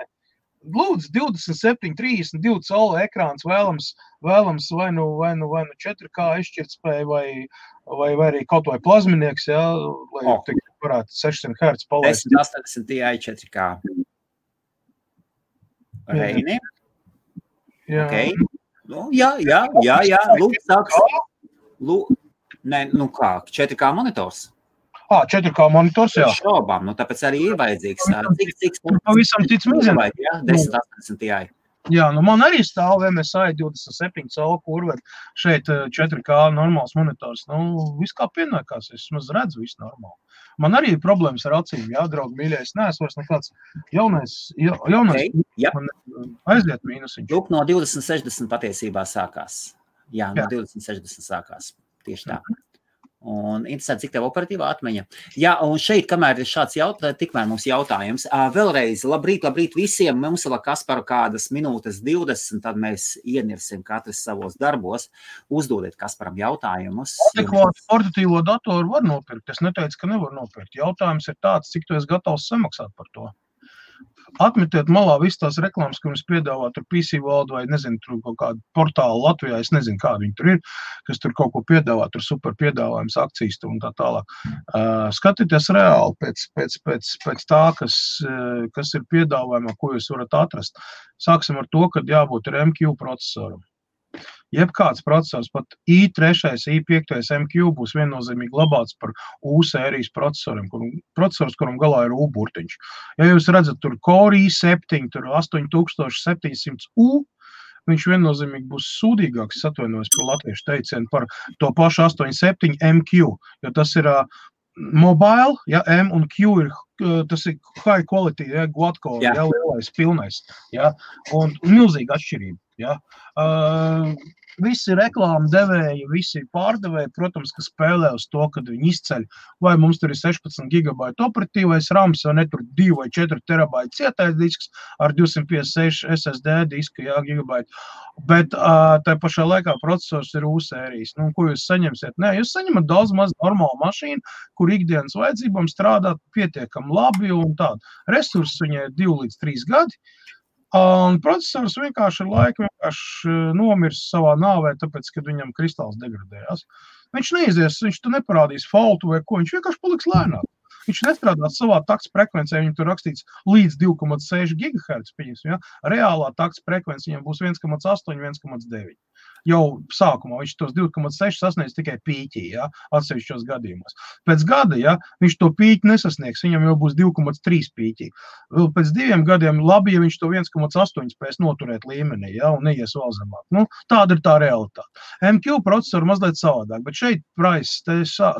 Lūdzu, 27, 32 colu ekrāns vēlams vai nu 4K izšķirtspēja vai arī kaut vai plazminieks, jā, lai varētu 600 Hz palaist. 1080 Ti 4K. Reini? Jā. Okay. Nu, jā. Lūdzu, sāks. Nē, nu kā, 4K monitors? 4K monitors, jā. Šaubām, nu tāpēc arī ir vajadzīgs. Cik pavisam tic mīzina. 1080 Ti. Jā, nu man arī stāv MSI 27 colu kurve, šeit 4K normāls monitors. Nu, viss kā pienākās, es maz redzu visu normāli. Man arī ir problēmas ar acīm, jā, draugi mīļie, es neesmu vairs nekāds jaunais man aiziet mīnusiņš. Lūk, no 2060 patiesībā sākās. Jā, no 2060 sākās. Tieši tā. Un interesanti, cik tev operatīvā atmiņa. Jā, un šeit, kamēr ir šāds tikmēr mums jautājums. Vēlreiz, labrīt visiem. Mums vēl Kasparu kādas minūtes 20, tad mēs ienirsim katrs savos darbos. Uzdodiet Kasparam jautājumus. Adekvātu portatīvo datoru var nopirkt. Es neteicu, ka nevar nopirkt. Jautājums ir tāds, cik tu esi gatavs samaksāt par to. Atmetiet malā visu tās reklāmas, ko jums piedāvā tur PC World vai, nezinu, tur kaut kādu portālu Latvijā, es nezinu, kādi viņi tur ir, kas tur kaut ko piedāvā, tur super piedāvājums, akcijas un tā tālāk. Skatieties reāli pēc tā, kas ir piedāvājumā, ko jūs varat atrast. Sāksim ar to, kad jābūt ar MQ procesoram. Jebkāds procesors, pat i3, i5 MQ būs viennozīmīgi labāks par U sērijas procesors, kuram galā ir U burtiņš. Ja jūs redzat tur Core i7, tur 8700U, viņš viennozīmīgi būs sūdīgāks, atvainojos par latviešu teicienu, par to pašu 87 MQ, jo tas ir mobile, ja, M un Q ir, tas ir high quality, ja, quad-core, ja, lielais, pilnais, ja, un milzīga atšķirība, ja. Visi reklāmu devēji, visi pārdevēji, protams, ka spēlē uz to, kad viņi izceļ, vai mums tur ir 16 GB operatīvais rams, vai ne tur 2 vai 4 terabaiti cietais disks ar 256 SSD disku, jā, gigabaiti. Bet tā pašā laikā procesors ir U sērijas. Nu, ko jūs saņemsiet? Nē, jūs saņemat daudz maz normālu mašīnu, kur ikdienas vajadzībām strādāt pietiekami labi un tādu. Resursi viņai 2 līdz 3 gadi. Un procesors vienkārši ar laiku nomirs savā nāvē, tāpēc, kad viņam kristāls degradējās. Viņš neizies, viņš tu neparādīs faultu vai ko, viņš vienkārši paliks lēnāk. Viņš nestrādās savā takts frekvencē, viņam tur rakstīts līdz 2,6 GHz, pieņemsim, ja? Reālā takts frekvence viņam būs 1,8, 1,9. Jau sākumā viņš tos 2,6 sasniedz tikai pīķī, ja, atsevišķos gadījumos. Pēc gada, ja, viņš to pīķi nesasniegs, viņam jau būs 2,3 pīķī. Vēl pēc 2 gadiem labi, ja viņš to 1,8 spēs noturēt līmenī, ja, un neies vēl zemāk. Nu, tāda ir tā realitāte. MQ procesoru mazliet savādāk, bet šeit price,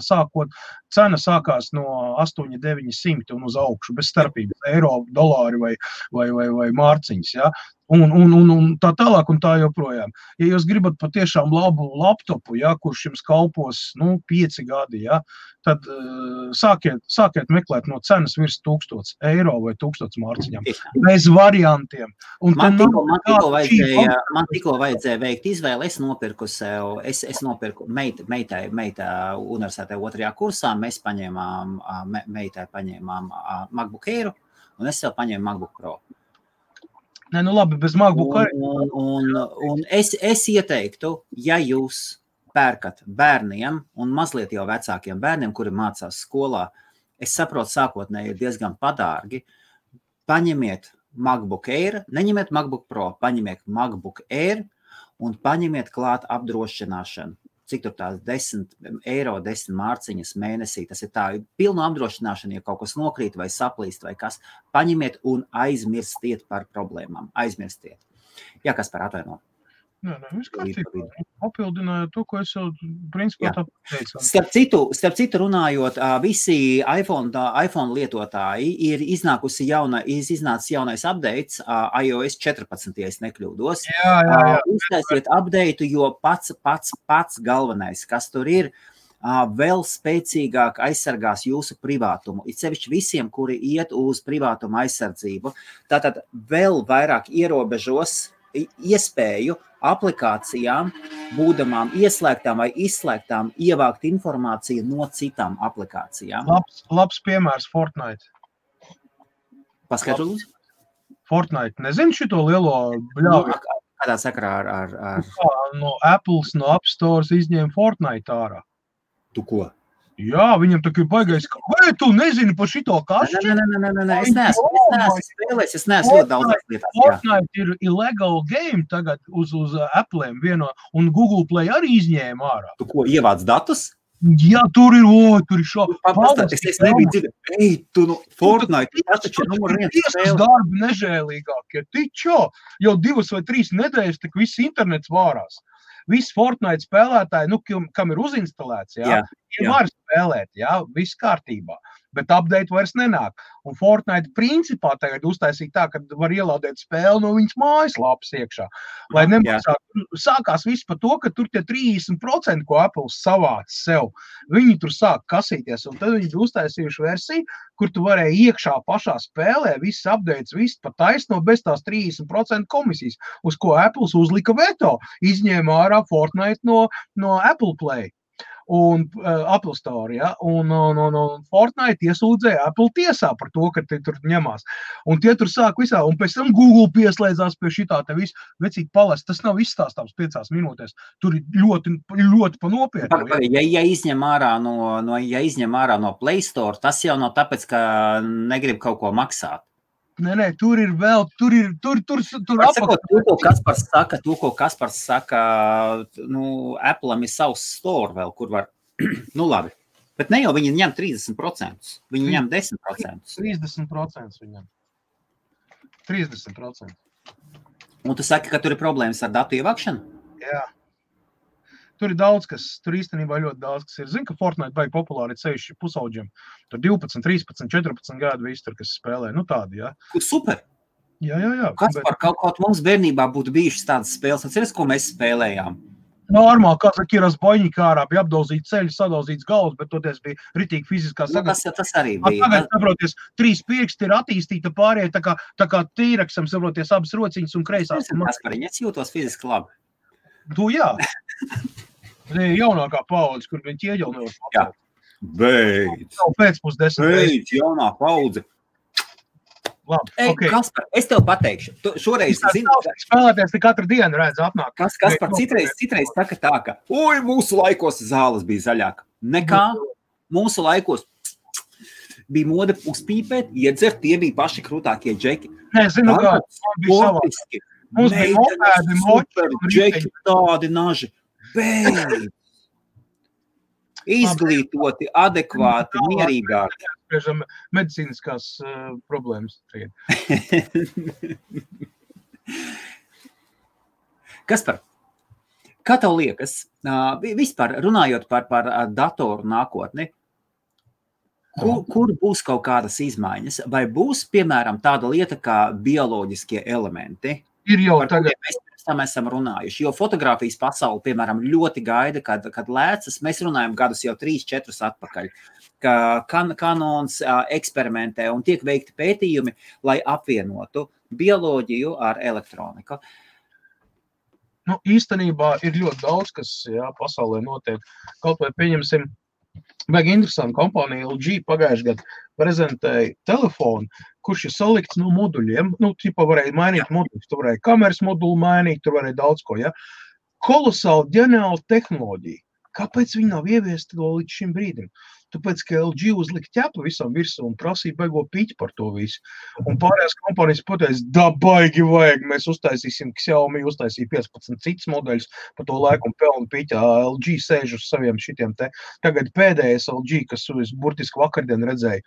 sākot, cena sākās no 8,900 un uz augšu, bez starpības, eiro, dolāri vai mārciņas, ja. Un tā tālāk un tā joprojām. Ja jūs gribat patiešām labu laptopu, ja, kurš jums kalpos 5 gadi, ja, tad sākiet meklēt no cenas virs 1000 eiro vai 1000 mārciņām. Bez variantiem. Un man tikko vajadzēja veikt izvēli. Es nopirku sev, es nopirku meitai universitātē 2. kursā. Mēs meitai paņēmām MacBook Air un es sev paņēmu MacBook Pro. Nē, nu labi, bez MacBook arī. Un es ieteiktu, ja jūs pērkat bērniem un mazliet jau vecākiem bērniem, kuri mācās skolā, es saprotu, sākotnēji ir diezgan padārgi, paņemiet MacBook Air, neņemiet MacBook Pro, paņemiet MacBook Air un paņemiet klāt apdrošināšanu. Cik tur tās 10 eiro, 10 mārciņas mēnesī, tas ir tā, pilnu apdrošināšanu, ja kaut kas nokrīt vai saplīst vai kas, paņemiet un aizmirstiet par problēmām, aizmirstiet. Jā, kas par atvaino? Nē, viss kārtībā. Papildinājot to, ko es jau principā tā teicu. Starp citu runājot, visi iPhone lietotāji ir iznācis jaunais updates, iOS 14, ja es nekļūdos. Jā. Uztaisiet update, jo pats galvenais, kas tur ir, vēl spēcīgāk aizsargās jūsu privātumu. It sevišķi visiem, kuri iet uz privātuma aizsardzību. Tātad vēl vairāk ierobežos iespēju aplikācijām, būdamām ieslēgtām vai izslēgtām, ievākt informāciju no citām aplikācijām. Labs piemērs Fortnite. Paskaidro, lūdzu? Fortnite. Nezinu šito lielo bļauju. Kādā sakarā ar... No Apples, no App Stores izņēma Fortnite ārā. Tu ko? Jā, viņam tā kā baigais, vai tu nezini par šito kašķi? Nē, es neesmu spēlējis, es neesmu ļoti daudzās lietās. Fortnite ir illegal game tagad uz Apple'iem vieno, un Google Play arī izņēma ārā. Tu ko, ievāc datus? Jā, tur ir šo. Es nebiju dzirdējis, Fortnite, tas taču ir numur 1 spēle. Darbi nežēlīgākie, tičo, jau 2 vai 3 nedēļas, tak viss internets vārās. Visi Fortnite spēlētāji, kam ir uzinstalēts, var spēlēt, viss kārtībā, bet update vairs nenāk. Un Fortnite principā tagad uztaisīja tā, ka var ielādēt spēli no viņas mājaslapas iekšā. Lai nemaksātu, sākās viss par to, ka tur tie 30%, ko Apple savāc sev, viņi tur sāk kasīties, un tad viņi uztaisījuši versiju, kur tu varēji iekšā pašā spēlē, viss updates, viss pa taisno bez tās 30% komisijas, uz ko Apple uzlika veto, izņēma ārā Fortnite no Apple Play. Un Apple Store, un Fortnite iesūdzēja Apple tiesā par to, ka te tur ņemās. Un tie tur sāk visā, un pēc tam Google pieslēdzās pie šitā te visu, vecīt palest, tas nav izstāstāms 5 minūtēs. Tur ir ļoti, ļoti pa nopietnu. Ja izņem ārā no Play Store, tas jau nav tāpēc, ka negrib kaut ko maksāt. Nē, tur ir vēl, tur apakšā. To, ko Kaspars saka, Apple'am ir savs store vēl, kur var, labi, bet ne jau viņi ņem 30%, viņi ņem 10%. 30% viņam. 30%. Un tu saki, ka tur ir problēmas ar datu ievākšanu? Jā. Tur ir daudz, tur īstenībā ļoti daudz, kas ir. Zinu, ka Fortnite baigi populāri ir sevišķi pusauģiem. Tur 12, 13, 14 gadu visi tur, kas spēlē. Tādi, jā. Super! Jā. Kaspar, kaut mums bērnībā būtu bijušas tādas spēles. Atceries, ko mēs spēlējām? Normāli, kā saka, ir Zboņņika ārā, bija apdauzīts ceļi, sadauzīts galvas, bet toties bija ritīgi fiziskā sagatavota. Tas arī bija. Tagad, saproties, 3 pirksti ir attīstīta pārējie, tā kā tīraksam, saproties, abas rociņas un kreisās. Kaspariņ, es jūtos fiziski labi. Tu jā. Jaunākā paudze, kur viņi ieģel nevar papildīt. Jā. Beidz. Pēcpus 10. Beidz, jaunā paudze. Labi, okay. Kaspar, es tev pateikšu. Tu šoreiz zini... Spēlēties te katru dienu redz apnāk. Kaspar, citreiz saka tā, ka mūsu laikos zāles bija zaļāka. Nekā mūsu laikos bija mode uzpīpēt, iedzert, tie bija paši krūtākie džeki. Nē, zinu, kā bija savādi. Mums bija mopēdi, super džeki, tādi naži. Beidz! Izglītoti, adekvāti, mierīgāki. Spriežam medicīniskās problēmas. Kaspar, kā tev liekas, vispār runājot par datoru nākotni, kur būs kaut kādas izmaiņas? Vai būs, piemēram, tāda lieta kā bioloģiskie elementi? Ir jau tagad. Mēs esam runājuši, jo fotogrāfijas pasauli, piemēram, ļoti gaida, kad lēcas, mēs runājam gadus jau 3-4 atpakaļ, ka Canons eksperimentē un tiek veikti pētījumi, lai apvienotu bioloģiju ar elektroniku. Īstenībā ir ļoti daudz, kas pasaulē notiek. Kaut vai pieņemsim, vajag interesantu kompāniju LG pagājuši gadu prezentēja telefonu, kurš ir salikts no moduļiem. Tipa varēja mainīt moduļus, tu varēja kameras modulu mainīt, tu varēja daudz ko, Kolosāli ģeniāla tehnoloģija. Kāpēc viņi nav ieviesti to līdz šim brīdim? tāpēc, ka LG uzlika ķepu visam virsū un prasīja baigo piķi par to visu. Un pārējās kompānijas pateica, da baigi vajag, mēs uztaisīsim, Xiaomi uztaisīja 15 citas modeļus pa to laiku un pelnu piķā. LG sēž uz saviem šitiem te. Tagad pēdējais LG, kas burtiski vakardien redzēja,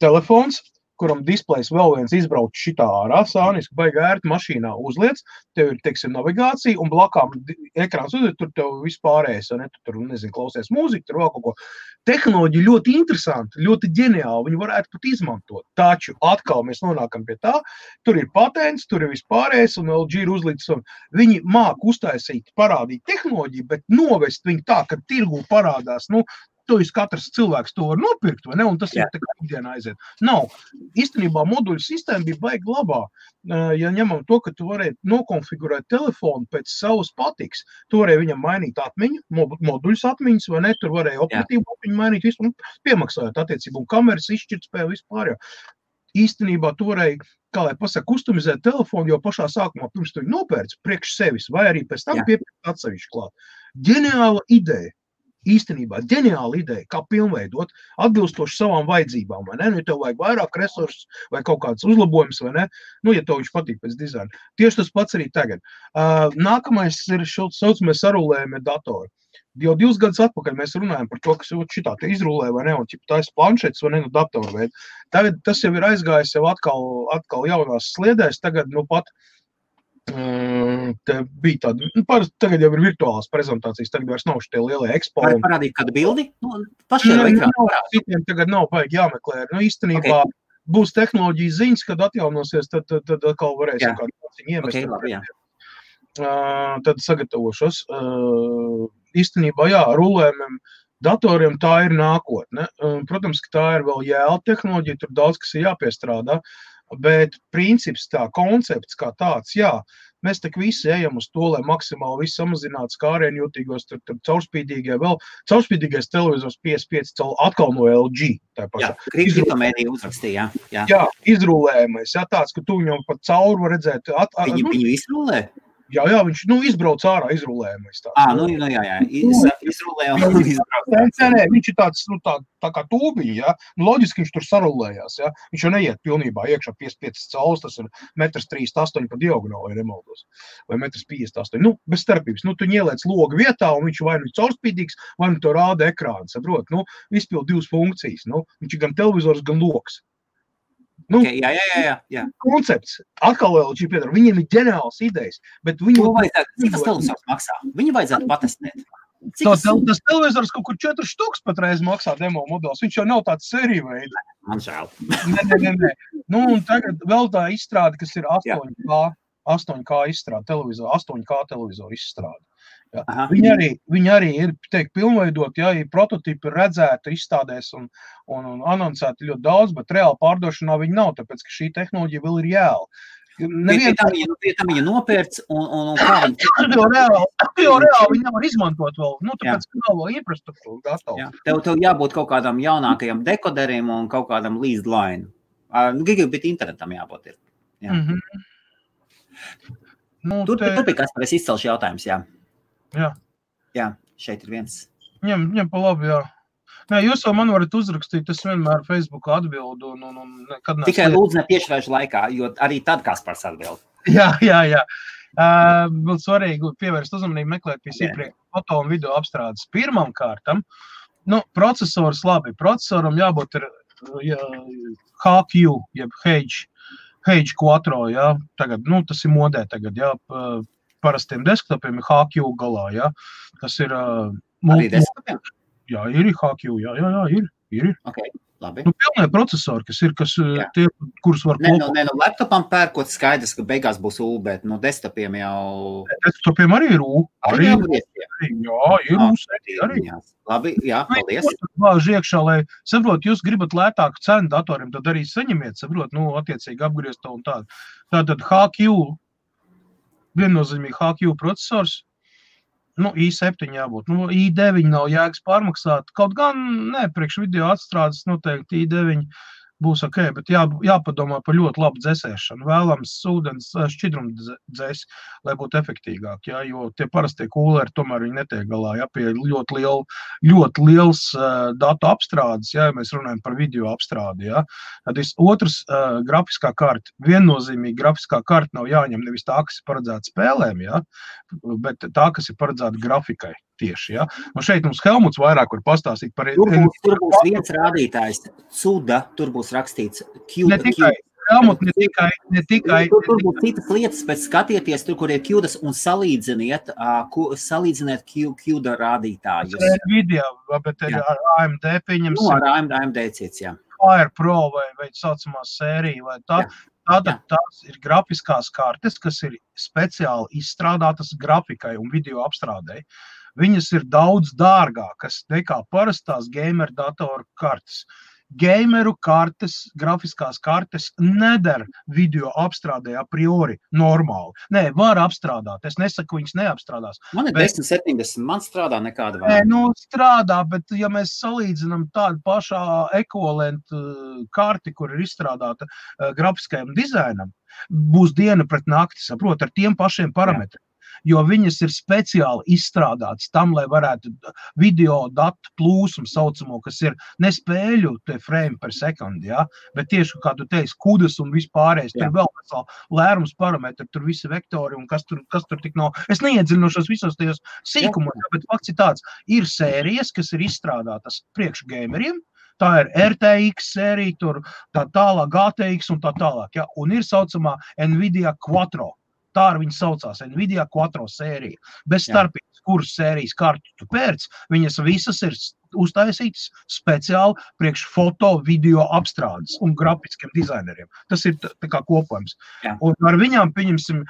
telefons, kuram displejs vēl viens izbrauc šitā ārā, sāniski, baigi ērti mašīnā uzliec, tev ir, teiksim, navigācija, un blakām ekrāns uzliec, tur tev vispārējais, ne, tu tur, nezinu, klausies mūziku, tur vēl kaut ko. Tehnoloģija ļoti interesanti, ļoti ģeniāli, viņi varētu pat izmantot. Taču atkal mēs nonākam pie tā, tur ir patents, tur ir vispārējais, un LG ir uzlīdz, un viņi māk uztaisīt, parādīt tehnoloģiju, bet novest viņu tā, ka tirgū parādās, to katrs cilvēks to var nopirkt, vai ne? Un tas ir tā kā ikdienā aiziet. Nav. Īstenībā moduļu sistēma bija baigi labā. Ja ņemam to, ka tu varēji nokonfigurēt telefonu pēc savas patiks, tu varēji viņam mainīt atmiņu, moduļus atmiņas, vai ne? Tur varēja operatīvu atmiņu mainīt, visu, piemaksājot attiecību, un kameras izšķirtspēju vispār. Īstenībā tu varēji, kā lai pasaka, kustomizēt telefonu jau pašā sākumā, pirms tu viņu nopērci priekš sevis, vai arī pēc tam piepirkt atsevišķi klāt. Ģeniāla ideja. Īstenībā ģeniāla ideja, kā pilnveidot, atbilstoši savām vajadzībām, vai ne? Ja tev vajag vairāk resursus vai kaut kāds uzlabojums, vai ne? Ja tev viņš patīk pēc dizaina. Tieši tas pats arī tagad. Nākamais ir saucamie sarulējumie datori. Jau 2 gadus atpakaļ mēs runājam par to, kas šitā te izrulē, vai ne? Un tā ir planšetes, vai ne? Datoru veidu. Tagad tas jau ir aizgājis jau atkal jaunās sliedēs, tagad pat te bija tāda, tagad jau ir virtuālās prezentācijas, tagad vairs nav šitie lielie ekspo. Var parādīt kādu bildi? Pašajā ekrānā. Citiem tagad nav baigi jāmeklē. Īstenībā būs tehnoloģijas ziņas, kad atjaunosies, tad atkal varēsim kādu iemest. Tad sagatavošos. Īstenībā, rulējumiem datoriem tā ir nākotne. Protams, ka tā ir vēl jēla tehnoloģija, tur daudz, kas ir jāpiestrādā. Bet princips tā, koncepts kā tāds, mēs tak visi ejam uz to, lai maksimāli visu samazinātu skārienjūtīgos, tur caurspīdīgais televizors 55 atkal no LG. Kriptomēdija uzrakstīja, jā. Jā, izrulējamais, tāds, ka tu viņam pat cauri var redzēt. Viņu izrulē? Jā, viņš izbrauc ārā izrulējamais. Izrulē un izbrauc. Nē, viņš ir tāds, tā kā tūbiņi, loģiski viņš tur sarulējās, viņš jau neiet pilnībā iekšā 55 cauls, tas ir 1,38 m pa diagonāli, ja nemaldos, vai 1,58 m. Bez starpības, tu ieliec logu vietā, un viņš vai nu caurspīdīgs, vai nu to rāda ekrāns, saprot, izpild 2 funkcijas, viņš ir gan televizors, gan logs. Jā. Koncepts. Atkal LG piedara. Viņiem ir ģeniāls idejas, bet viņi... Cik tas televizors maksā? Viņi vajadzētu patestēt. Tas televizors kaut kur 4 štuks patreiz maksā demo modelis. Viņš jau nav tāds sēriju veidi. Man žēl. Nē. Un tagad vēl tā izstrāde, kas ir 8K izstrāde, 8K televizoru izstrāde. Viņi arī ir, pilnveidot, ir prototipi redzēti, izstādēs un anoncēti ļoti daudz, bet reāli pārdošanā viņi nav, tāpēc, ka šī tehnoloģija vēl ir jēla. Pie tam viņa nopērts un kā viņi... Jo reāli viņi nevar izmantot vēl, tāpēc, ka nav vēl infrastruktūra gatava. Tev jābūt kaut kādam jaunākajam dekoderiem un kaut kādam leased line. Gigabit internetam jābūt ir. Tur bija kas par es izcelšu jautājums, Jā, šeit ir viens. Ņem pa labi, Nē, jūs jau man varat uzrakstīt, es vienmēr Facebookā atbildu. Tikai lūdzu ne tiešraižu laikā, jo arī tad Kaspars atbild. Jā. Vēl svarīgi pievērst uzmanību meklēt pie iepriekš foto un video apstrādes. Pirmam kārtam, procesors labi. Procesoram jābūt ir HQ, jeb H Quattro, tagad, tas ir modē tagad, parastiem desktopiem ir HQ galā, tas ir... Arī desktopiem? Jā, ir HQ, ir. Okay, labi. Pilnē procesori, tie, kurus var kopā. Laptopam pērkot skaidrs, ka beigās būs U, bet desktopiem jau... Desktopiem arī ir U. Arī ir U. Arī. Labi, paldies. Vāž iekšā, lai, saprot, jūs gribat lētāku cenu datoriem, tad arī saņemiet, saprot, attiecīgi apgriezt to un tādu. Tātad HQ, viennozīmīgi HQ procesors, i7 jābūt, i9 nav jēgas pārmaksāt, kaut gan, priekš video atstrādes noteikti i9 būs ok, bet jāpadomā par ļoti labu dzēsēšanu. Vēlams ūdens šķidrumu dzēs, lai būtu efektīgāk, ja, jo tie parastie kūleri tomēr viņi netiek galā, ja, pie ļoti liels datu apstrādes, ja mēs runājam par video apstrādi, ja. Tad otrs grafiskā karta, viennozīmīgi grafiskā karta nav jāņem nevis tā, kas ir paredzēta spēlēm, ja, bet tā, kas ir paredzēta grafikai. Tieši, ja. Un šeit mums Helmuts vairāk var pastāstīt par... Tur būs viens rādītājs, CUDA, tur būs rakstīts Ne tikai, Helmut, ne tikai. Tur būs citas lietas, bet skatieties tur, kur ir CUDAs un salīdziniet CUDA rādītājus. Video, bet ar AMD pieņemsim. Ar AMD cits, jā. Fire Pro vai saucamā sērija vai tā. Tātad tās ir grafiskās kartes, kas ir speciāli izstrādātas grafikai un video apstrādei. Viņas ir daudz dārgākas nekā parastās gamer datoru kartes. Gameru kartes, grafiskās kartes neder video apstrādē a priori normāli. Nē, var apstrādāt. Es nesaku, viņas neapstrādās. Man ir 1070, man strādā nekāda vēl. Nē, strādā, bet ja mēs salīdzinām tādu pašā ekvivalentu karti, kur ir izstrādāta grafiskajam dizainam, būs diena pret nakti, saprot, ar tiem pašiem parametriem. Jo viņas ir speciāli izstrādātas tam, lai varētu video datu plūsmu saucamo, kas ir ne spēļu te frame per sekundi, ja, bet tieši, kā tu teici, kudas un vispārējais, tur vēl vesel lērums parametri, tur visi vektori un kas tur tik nav. Es neiedziļinošos visos tajos sīkumos, bet fakts ir tāds, ir sērijas, kas ir izstrādātas priekš gameriem, tā ir RTX sērija, tur tā tālāk GTX un tā tālāk, ja, un ir saucamā Nvidia Quattro. Tā ar viņu saucās Nvidia Quattro sērija. Bez starpības, kuras sērijas kartu tu pērc, viņas visas ir uztaisītas speciāli priekš foto, video apstrādes un grafiskiem dizaineriem. Tas ir tā kā kopojums. Jā. Un ar viņām, pieņemsim,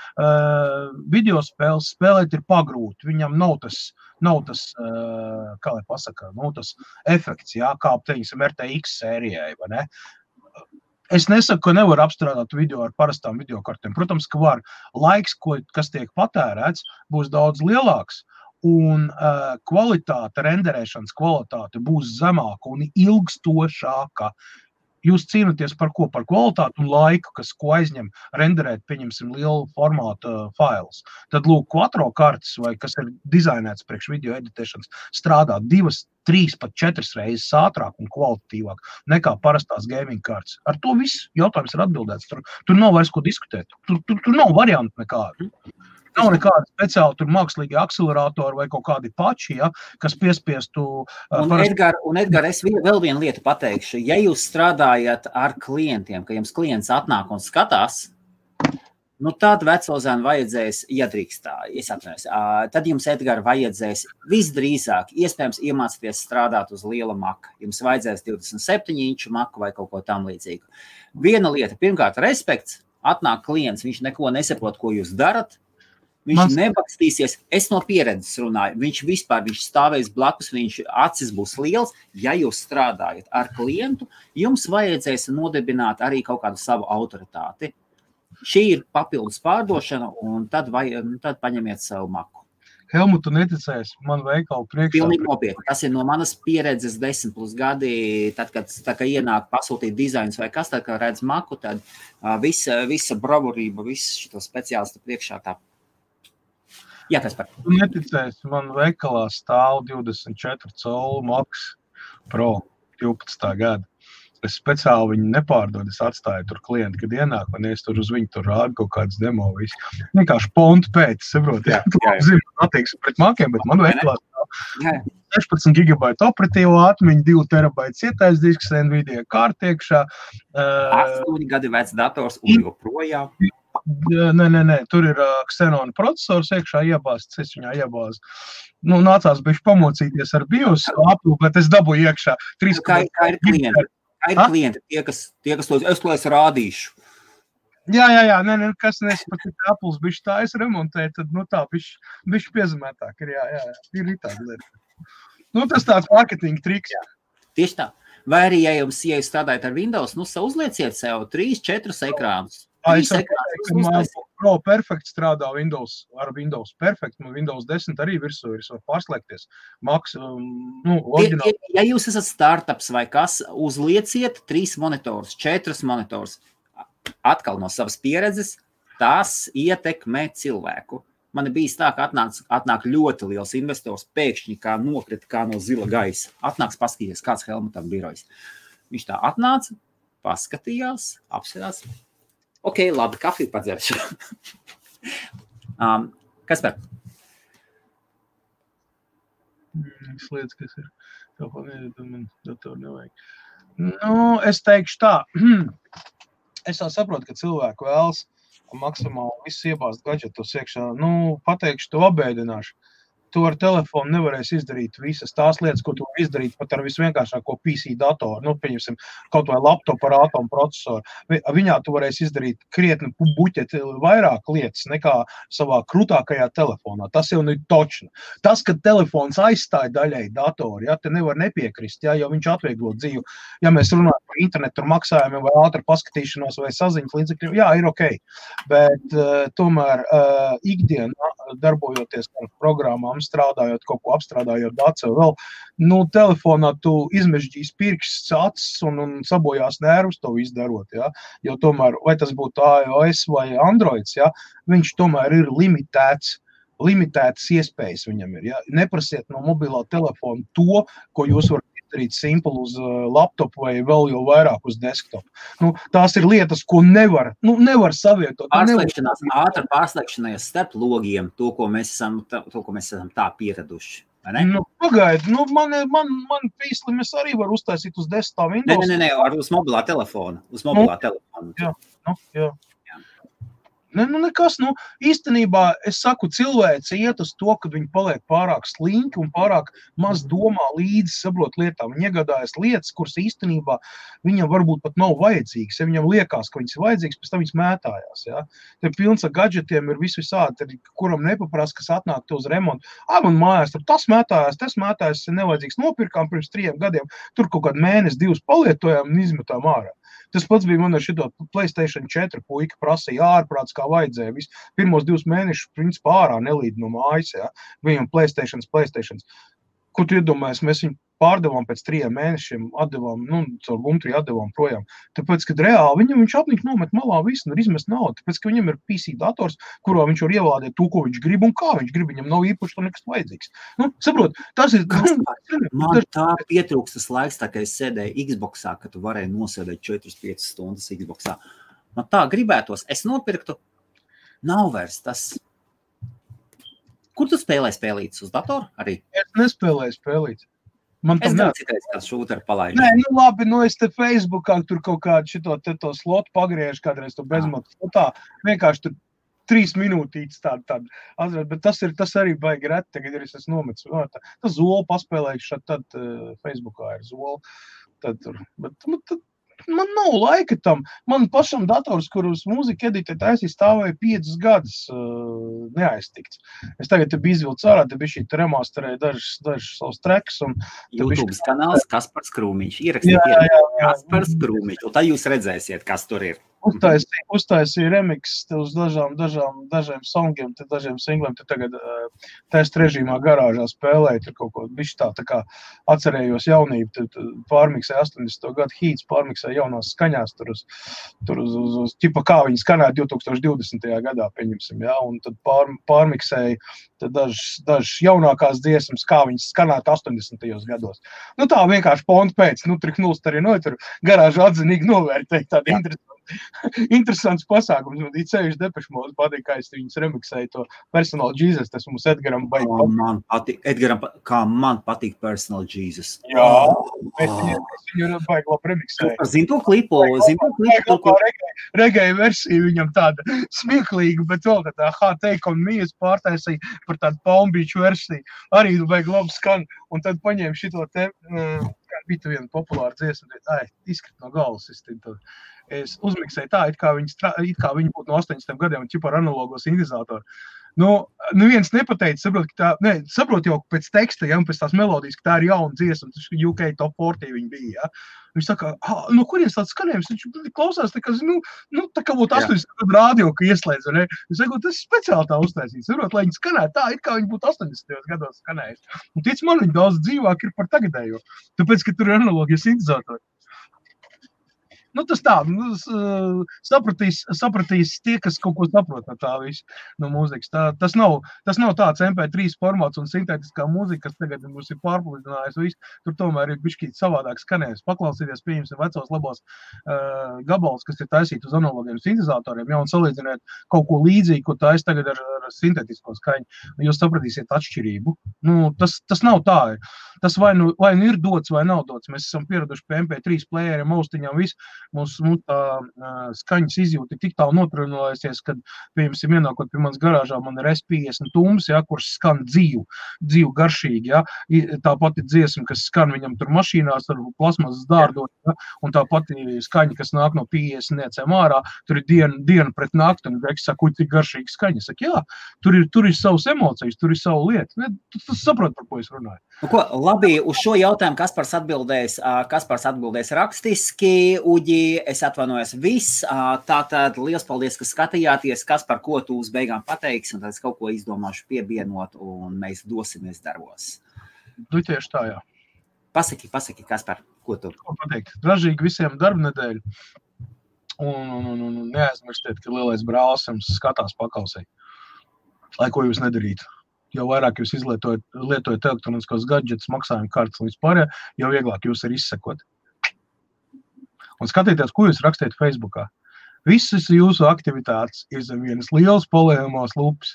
video spēles spēlēt ir pagrūti. Viņam nav tas, kā lai pasaka, nav tas efekts, jā, kā, teiksim, RTX sērijai, vai ne? Es nesaku, ka nevar apstrādāt video ar parastām videokartēm. Protams, ka var. Laiks, kas tiek patērēts, būs daudz lielāks, un kvalitāte, renderēšanas kvalitāte būs zemāka un ilgstošāka. Jūs cīnaties par ko? Par kvalitāti un laiku, ko aizņem renderēt, pieņemsim, lielu formātu failus. Tad, lūk, Quattro kartes, vai kas ir dizainēts priekš video editēšanas, strādā 2, 3, pat 4 reizes ātrāk un kvalitatīvāk nekā parastās gaming kartes. Ar to viss jautājums ir atbildēts. Tur nav vairs ko diskutēt. Tur nav variantu nekādu. Nav nekāda speciāla tur mākslīgi akceleratori vai kaut kādi pači, ja, kas piespiestu... Edgar, es vēl vienu lietu pateikšu. Ja jūs strādājat ar klientiem, ka jums klients atnāk un skatās, tad vecozēnu vajadzēs, ja drīkstā, es atvainojos, tad jums, Edgar, vajadzēs visdrīzāk, iespējams, iemācīties strādāt uz liela maka. Jums vajadzēs 27 inču maku vai kaut ko tam līdzīgu. Viena lieta, pirmkārt, respekts, atnāk klients, viņš neko nesaprot, ko jūs darat, viņš nebakstīsies, es no pieredzes runāju, viņš stāvēs blakus, viņš acis būs liels, ja jūs strādājat ar klientu, jums vajadzēs nodibināt arī kaut kādu savu autoritāti. Šī ir papildus pārdošana, un tad paņemiet savu maku. Helmut, tu neticēsi, man veikalu priekšā. Pilnīgi nopietni. Tas ir no manas pieredzes 10+ gadi, tad, kad ienāk pasūtīt dizains vai kas, tad, kad redz maku, tad visa bravurība, viss šito speciālistu priekšā tā. Jā, Kaspar. Tu neticēsi, man veikalā stāv 24 colu Max Pro 12. gada. Es speciāli viņu nepārdodu, es atstāju tur klienti, kad ienāk, un es tur uz viņu tur rādu kaut kādas demo visu. Vienkārši pontu pēc, saprot, zinu, attieksmi pret makiem, bet man veikalā stāv 16 GB operatīvo atmiņu, 2 TB cietais disks, Nvidia kārta iekšā. 8 gadi vecs dators un joprojām. Nē, tur ir Xenon procesors iekšā iebāzts, es viņā iebāzu. Nācās bišķi pamocīties ar BIOS aplu, bet es dabūju iekšā. Kā ir klienti? Kā ir klienti? Tie, kas to es rādīšu. Jā, kas nespat, ka Apples bišķi tā es remontēju, tad, tā bišķi piezemētāk ir, jā, ir tāda lieta. Tas tāds marketinga triks. Jā. Tieši tā. Vai arī, ja jūs strādājat ar Windows, uzlieciet sev 3-4 ekrānus. Pro Perfect strādā ar Windows Perfect, un Windows 10 arī virsū ir, var pārslēgties. Max, oriģināli. Ja jūs esat startups vai kas, uzlieciet 3 monitors, 4 monitors. Atkal no savas pieredzes, tas ietekmē cilvēku. Man bijis tā, ka atnāk ļoti liels investors, pēkšņi kā nokrita kā no zila gaisa. Atnāks paskatīties, kāds Helmutam birojs. Viņš tā atnāca, paskatījās, apsverās. Ok, labi, kafiju padzeršu. Kaspar? Es lietas, kas ir. Man datoru nevajag. Es teikšu tā. Es jau saprotu, ka cilvēku vēlas maksimāli viss iebāzt gadžetos iekšā. Pateikšu, to apbēdināšu. Tu ar telefonu nevarēsi izdarīt visas tās lietas, ko tu izdarīt pat ar visvienkāršāko PC datoru, pieņemsim, kaut vai laptopu ar atomu procesoru. Viņā tu varēsi izdarīt krietni buķeti vairāk lietas nekā savā krūtākajā telefonā. Tas jau ir točni. Tas, ka telefons aizstāja daļai datoru, te nevar nepiekrist, jo viņš atvieglo dzīvi. Ja mēs runājam par internetu ar maksājumiem vai ātru paskatīšanos vai saziņas līdzekļiem, jā, ir ok. Bet tomēr ikdienā darbojoties ar programmām, strādājot, kaut ko apstrādājot dacu vēl, telefonā tu izmežģīs pirksts, acis un sabojās nervus to izdarot, jo tomēr, vai tas būtu iOS vai Androids, viņš tomēr ir limitētas iespējas viņam ir, Neprasiet no mobilā telefona to, ko jūs varat izdarīt simpli uz laptopu vai vēl jau vairāk uz desktopu. Tās ir lietas, ko nevar savietot. Ātra pārslēgšanās starp logiem, to, ko mēs esam tā pieraduši. Pagaidi, man pīslim es arī varu uztaisīt uz desktop Windows. Nē, uz mobilā telefona. Jā. Nekas, īstenībā es saku, cilvēci iet uz to, kad viņi paliek pārāk slinki un pārāk maz domā līdzi saprot lietām. Viņi iegādājas lietas, kuras īstenībā viņam varbūt pat nav vajadzīgas. Ja viņam liekas, ka viņas ir vajadzīgas, pēc tam viņas mētājās. Te pilns ar gadžetiem ir visādi, kuram nepaprasa, kas atnāk to uz remontu. Man mājās, tas mētājās, ir nevajadzīgs. Nopirkām pirms 3 gadiem, tur kaut kādu mēnesi, 2 palietojām un izmetām ārā. Tas pats bija man ar šito PlayStation 4 puika prasīja ārprāts, kā vajadzēja. Pirmos 2 mēnešus, principā, ārā nelīd no mājas, Viņam PlayStations. Ko tu iedomājies, mēs viņu pārdevām pēc 3 mēnešiem, atdevām, caur Gumtrī atdevām projām. Tāpēc, kad reāli viņš apnika nomet malā visu un izmest naudu. Tāpēc, ka viņam ir PC dators, kurā viņš var ievādēt to, ko viņš grib un kā viņš grib. Viņam nav īpaši to nekas vajadzīgs. Saprot, tas ir... Man tā pietrūkstas laiks, tā kā es sēdēju Xboxā, ka tu varēji nosēdēt 4-5 stundas Xboxā. Man tā gribētos, es nopirktu, nav vairs tas... Kur tu spēlēji spēlītas uz datoru arī? Es nespēlēju spēlītas. Es gan citreiz kāds šūteru palaidu. Nē, labi, es te Facebookā tur kaut kādu šito slotu pagriežu kādreiz to bezmatu. Vienkārši tur 3 minūtītes tāda. Bet tas arī baigi reti, tagad ir es nometu. Tas Zolu paspēlējuši, tad Facebookā ir Zolu. Bet man nav laika tam. Man pašam dators, kur uz mūzika editē taisīja, stāvēja 5 gadus neaiztikts. Es tagad te biju izvilcis ārā, te bija šī remasterēja dažas savus tracks. YouTube kanāls Kaspars Krūmiņš. Ierakstiet Kaspars Krūmiņš, un tā jūs redzēsiet, kas tur ir. Uztaisīja remix uz dažiem songiem, dažiem singliem. Te tagad test režīmā garāžā spēlēja, tur kaut ko bišķi tā kā atcerējos jaunību, pārmiksēja 80. gadu hīts, pārmiksēja jaunās skaņās, tur uz ķipa kā viņi skanēja 2020. gadā, pieņemsim, un tad pārmiksēja dažas jaunākās dziesmas, kā viņas skanētu 80. gados. Tā vienkārši pontu pēc, trik nulst arī tur garāžu atzinīgi novērtēja tādi interesants pasākums. Man īcējuši Depeche Mode patīk, kā es viņus remiksēju to Personal Jesus, tas mums Edgaram baigi. Kā man patīk Personal Jesus. Jā, es viņu baigi labi remiksēju. Zin to klipu? Reggae versija viņam tāda smieklīga, bet vēl tā Take On Me pārtaisīja par tādu Palm Beach versiju. Arī baigi labi skan. Un tad paņēma šito te, kā bija viena populāra dziesma, izkrit no galvas. Es uzmiksēju tā, it kā viņi būtu no 80 gadiem un ķipa ar analogo sintezātoru. Neviens nepateica, saprot jau pēc teksta, ja, un pēc tās melodijas, ka tā ir jauna dziesma, tas UK Top 40 viņi bija, ja. Viņš saka, no kurienes tāds skanējums, viņš klausās, tā kā būtu 80 gadu rādio, ka ieslēdz, ne? Viņš saka, tas speciāli tā uztaisīts, saprot, lai viņi skanētu tā, it kā viņi būtu 80 gados skanējis. Un tic man, viņi daudz dzīvāk ir par tagadējo, tāpēc, ka tur ir analogie sintetizatori. Tas tā, sapratīs tie, kas kaut ko saprot no tā visu, no mūzikas. Tas nav tāds MP3 formāts un sintētiskā mūzika, kas tagad mums ir pārpludinājis visu. Tur tomēr ir bišķīt savādāk skanējums. Paklausīties, pieņemsim vecos labos gabalus, kas ir taisīti uz analogiem sintetizatoriem, ja, un salīdzināt kaut ko līdzīgu, ko taisa tagad ar sintētisko skaņu. Jūs sapratīsiet atšķirību. Tas nav tā. Tas vai nu ir dots, vai nav dots. Mēs esam pieraduši pie MP3 playeriem, austiņām, visu. Mūsu skaņas izjūta ir tik tālu notrunājusies, kad, piemēram, ienākot pie manas garāžā, man ir S50 tums, ja, kurš skan dzīvu garšīgi, ja. Tā pati dziesma, kas skan viņam tur mašīnās ar plasmasas dārdot, ja, un tā pati skaņa, kas nāk no 50 niecēm ārā, tur ir diena pret nakti, un Greks saka, cik garšīgi skaņa. Saka, jā, tur ir savas emocijas, tur ir savu lietu. Ne, tu saproti, par ko es runāju. Labi, uz šo jautājumu Kaspars atbildēs rakstiski, Uģi, es atvainojos viss. Tātad liels paldies, ka skatījāties, Kaspar, ko tu uz beigām pateiksi, un tad es kaut ko izdomāšu piebienot, un mēs dosimies darbos. Tieši tā, jā. Pasaki, Kaspar, ko tu? Ko pateikt? Ražīgi visiem darbnedēļu. Un neaizmirstiet, ka lielais brālis jums skatās pakausē. Lai ko jūs nedarītu. Jo vairāk jūs lietojat elektroniskos gadžetus, maksājumu kartes un vispār, jo vieglāk jūs ir izsekot. Un skatieties, ko jūs rakstiet Facebookā. Visas jūsu aktivitātes ir zem vienas lielas polējumās lupas.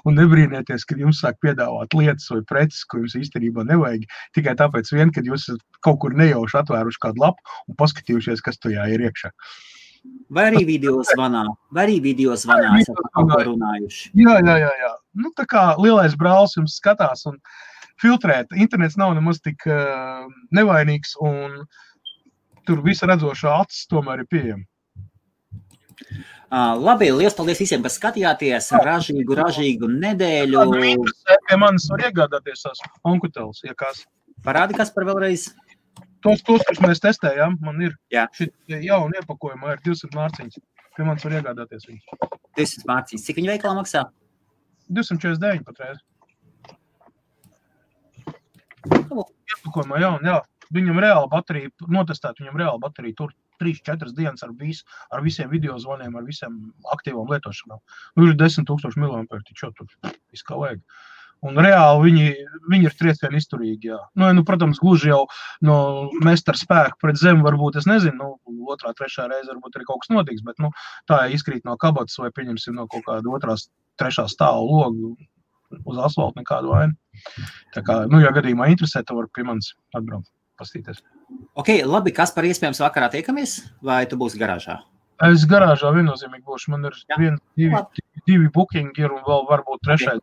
Un nebrīnieties, kad jums sāk piedāvāt lietas vai preces, ko jums īstenībā nevajag, tikai tāpēc vien, kad jūs kaut kur nejauši atvēruši kādu lapu un paskatījušies, kas tajā ir iekšā. Vai arī video zvanā esat kaut ko runājuši. Jā. Tā kā lielais brālis jums skatās un filtrēt. Internets nav nemaz tik nevainīgs un tur visa redzošā acis tomēr ir pieejama. Labi, liels paldies visiem, kas skatījāties. Ražīgu nedēļu. Pie manis var iegādāties tās onkuteles, ja kas. Parādi, kas par vēlreiz? Tos, kurus mēs testējām, man ir šī jauna iepakojumā, ir 200 mārciņas. Pie manis var iegādāties viņus. 200 mārciņas. Cik viņa veikalā maksā? 249 patreiz. Iepakojumā jauna, jā. Viņam reāla baterija, notestēt viņam reāla baterija, tur 3-4 dienas ar visiem video zvaniem, ar visiem aktīvām lietošanām. Ir 10,000 mAh, taču tur viss kā vajag. Un reāli viņi ir triecieni izturīgi, jā. Protams, gluži jau no mestara spēku pret zemi varbūt, es nezinu, otrā, trešā reize varbūt arī kaut kas notiks, bet, tā izkrīt no kabatas vai pieņemsim no kaut kāda otrās, trešā stāva logu uz asfaltu nekādu vainu. Tā kā, ja gadījumā interesē, tad var pie manis atbraukt, pastīties. Ok, labi, kas par iespējams vakarā tiekamies, vai tu būsi garāžā? Es garāžā viennozīmīgi būšu, man ir divi bookingi ir un vēl varbūt trešais.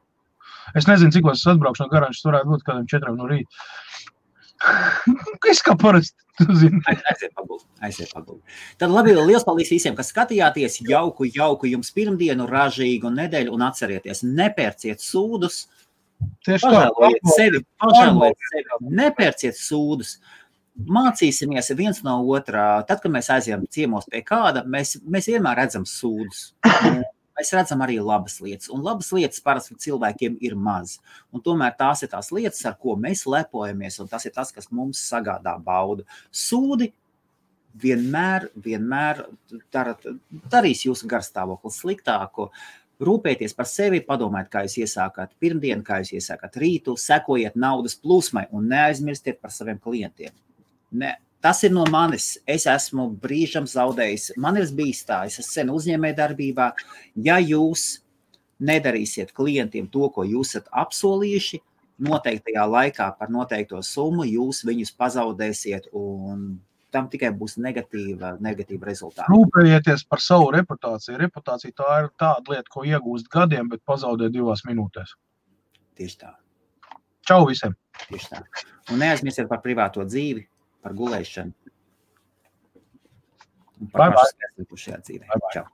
Es nezinu, cik es atbraukšu no garāžas, varētu būt kādam 4 no rīta. Es kā parasti, tu zini. Aiziet paguldi. Tad labi, liels paldies visiem, kas skatījāties. Jauku jums pirmdienu, ražīgu nedēļu un atcerieties, nepērciet sūdus. Pažēlojiet sevi, nepērciet sūdus. Mācīsimies viens no otrā. Tad, kad mēs aizējam ciemos pie kāda, mēs vienmēr redzam sūdus. Mēs redzam arī labas lietas, un labas lietas parasti cilvēkiem ir maz. Un tomēr tās ir tās lietas, ar ko mēs lepojamies, un tas ir tas, kas mums sagādā baudu. Sūdi vienmēr darīs jūsu garstāvokli sliktāku. Rūpēties par sevi, padomājiet, kā jūs iesākāt pirmdienu, kā jūs iesākāt rītu, sekojiet naudas plūsmai un neaizmirstiet par saviem klientiem. Tas ir no manis. Es esmu brīžam zaudējis. Man ir bijis tā, es esmu sen uzņēmējdarbībā. Ja jūs nedarīsiet klientiem to, ko jūs esat apsolījuši, noteiktajā laikā par noteikto summu, jūs viņus pazaudēsiet un tam tikai būs negatīva rezultāta. Rūpējieties par savu reputāciju. Reputācija tā ir tāda lieta, ko iegūst gadiem, bet pazaudē 2 minūtēs. Tieši tā. Čau visiem! Tieši tā. Un neaizmirstiet par privāto dzīvi, par gulēšanu. Un par pašu šajā dzīvē. Čau!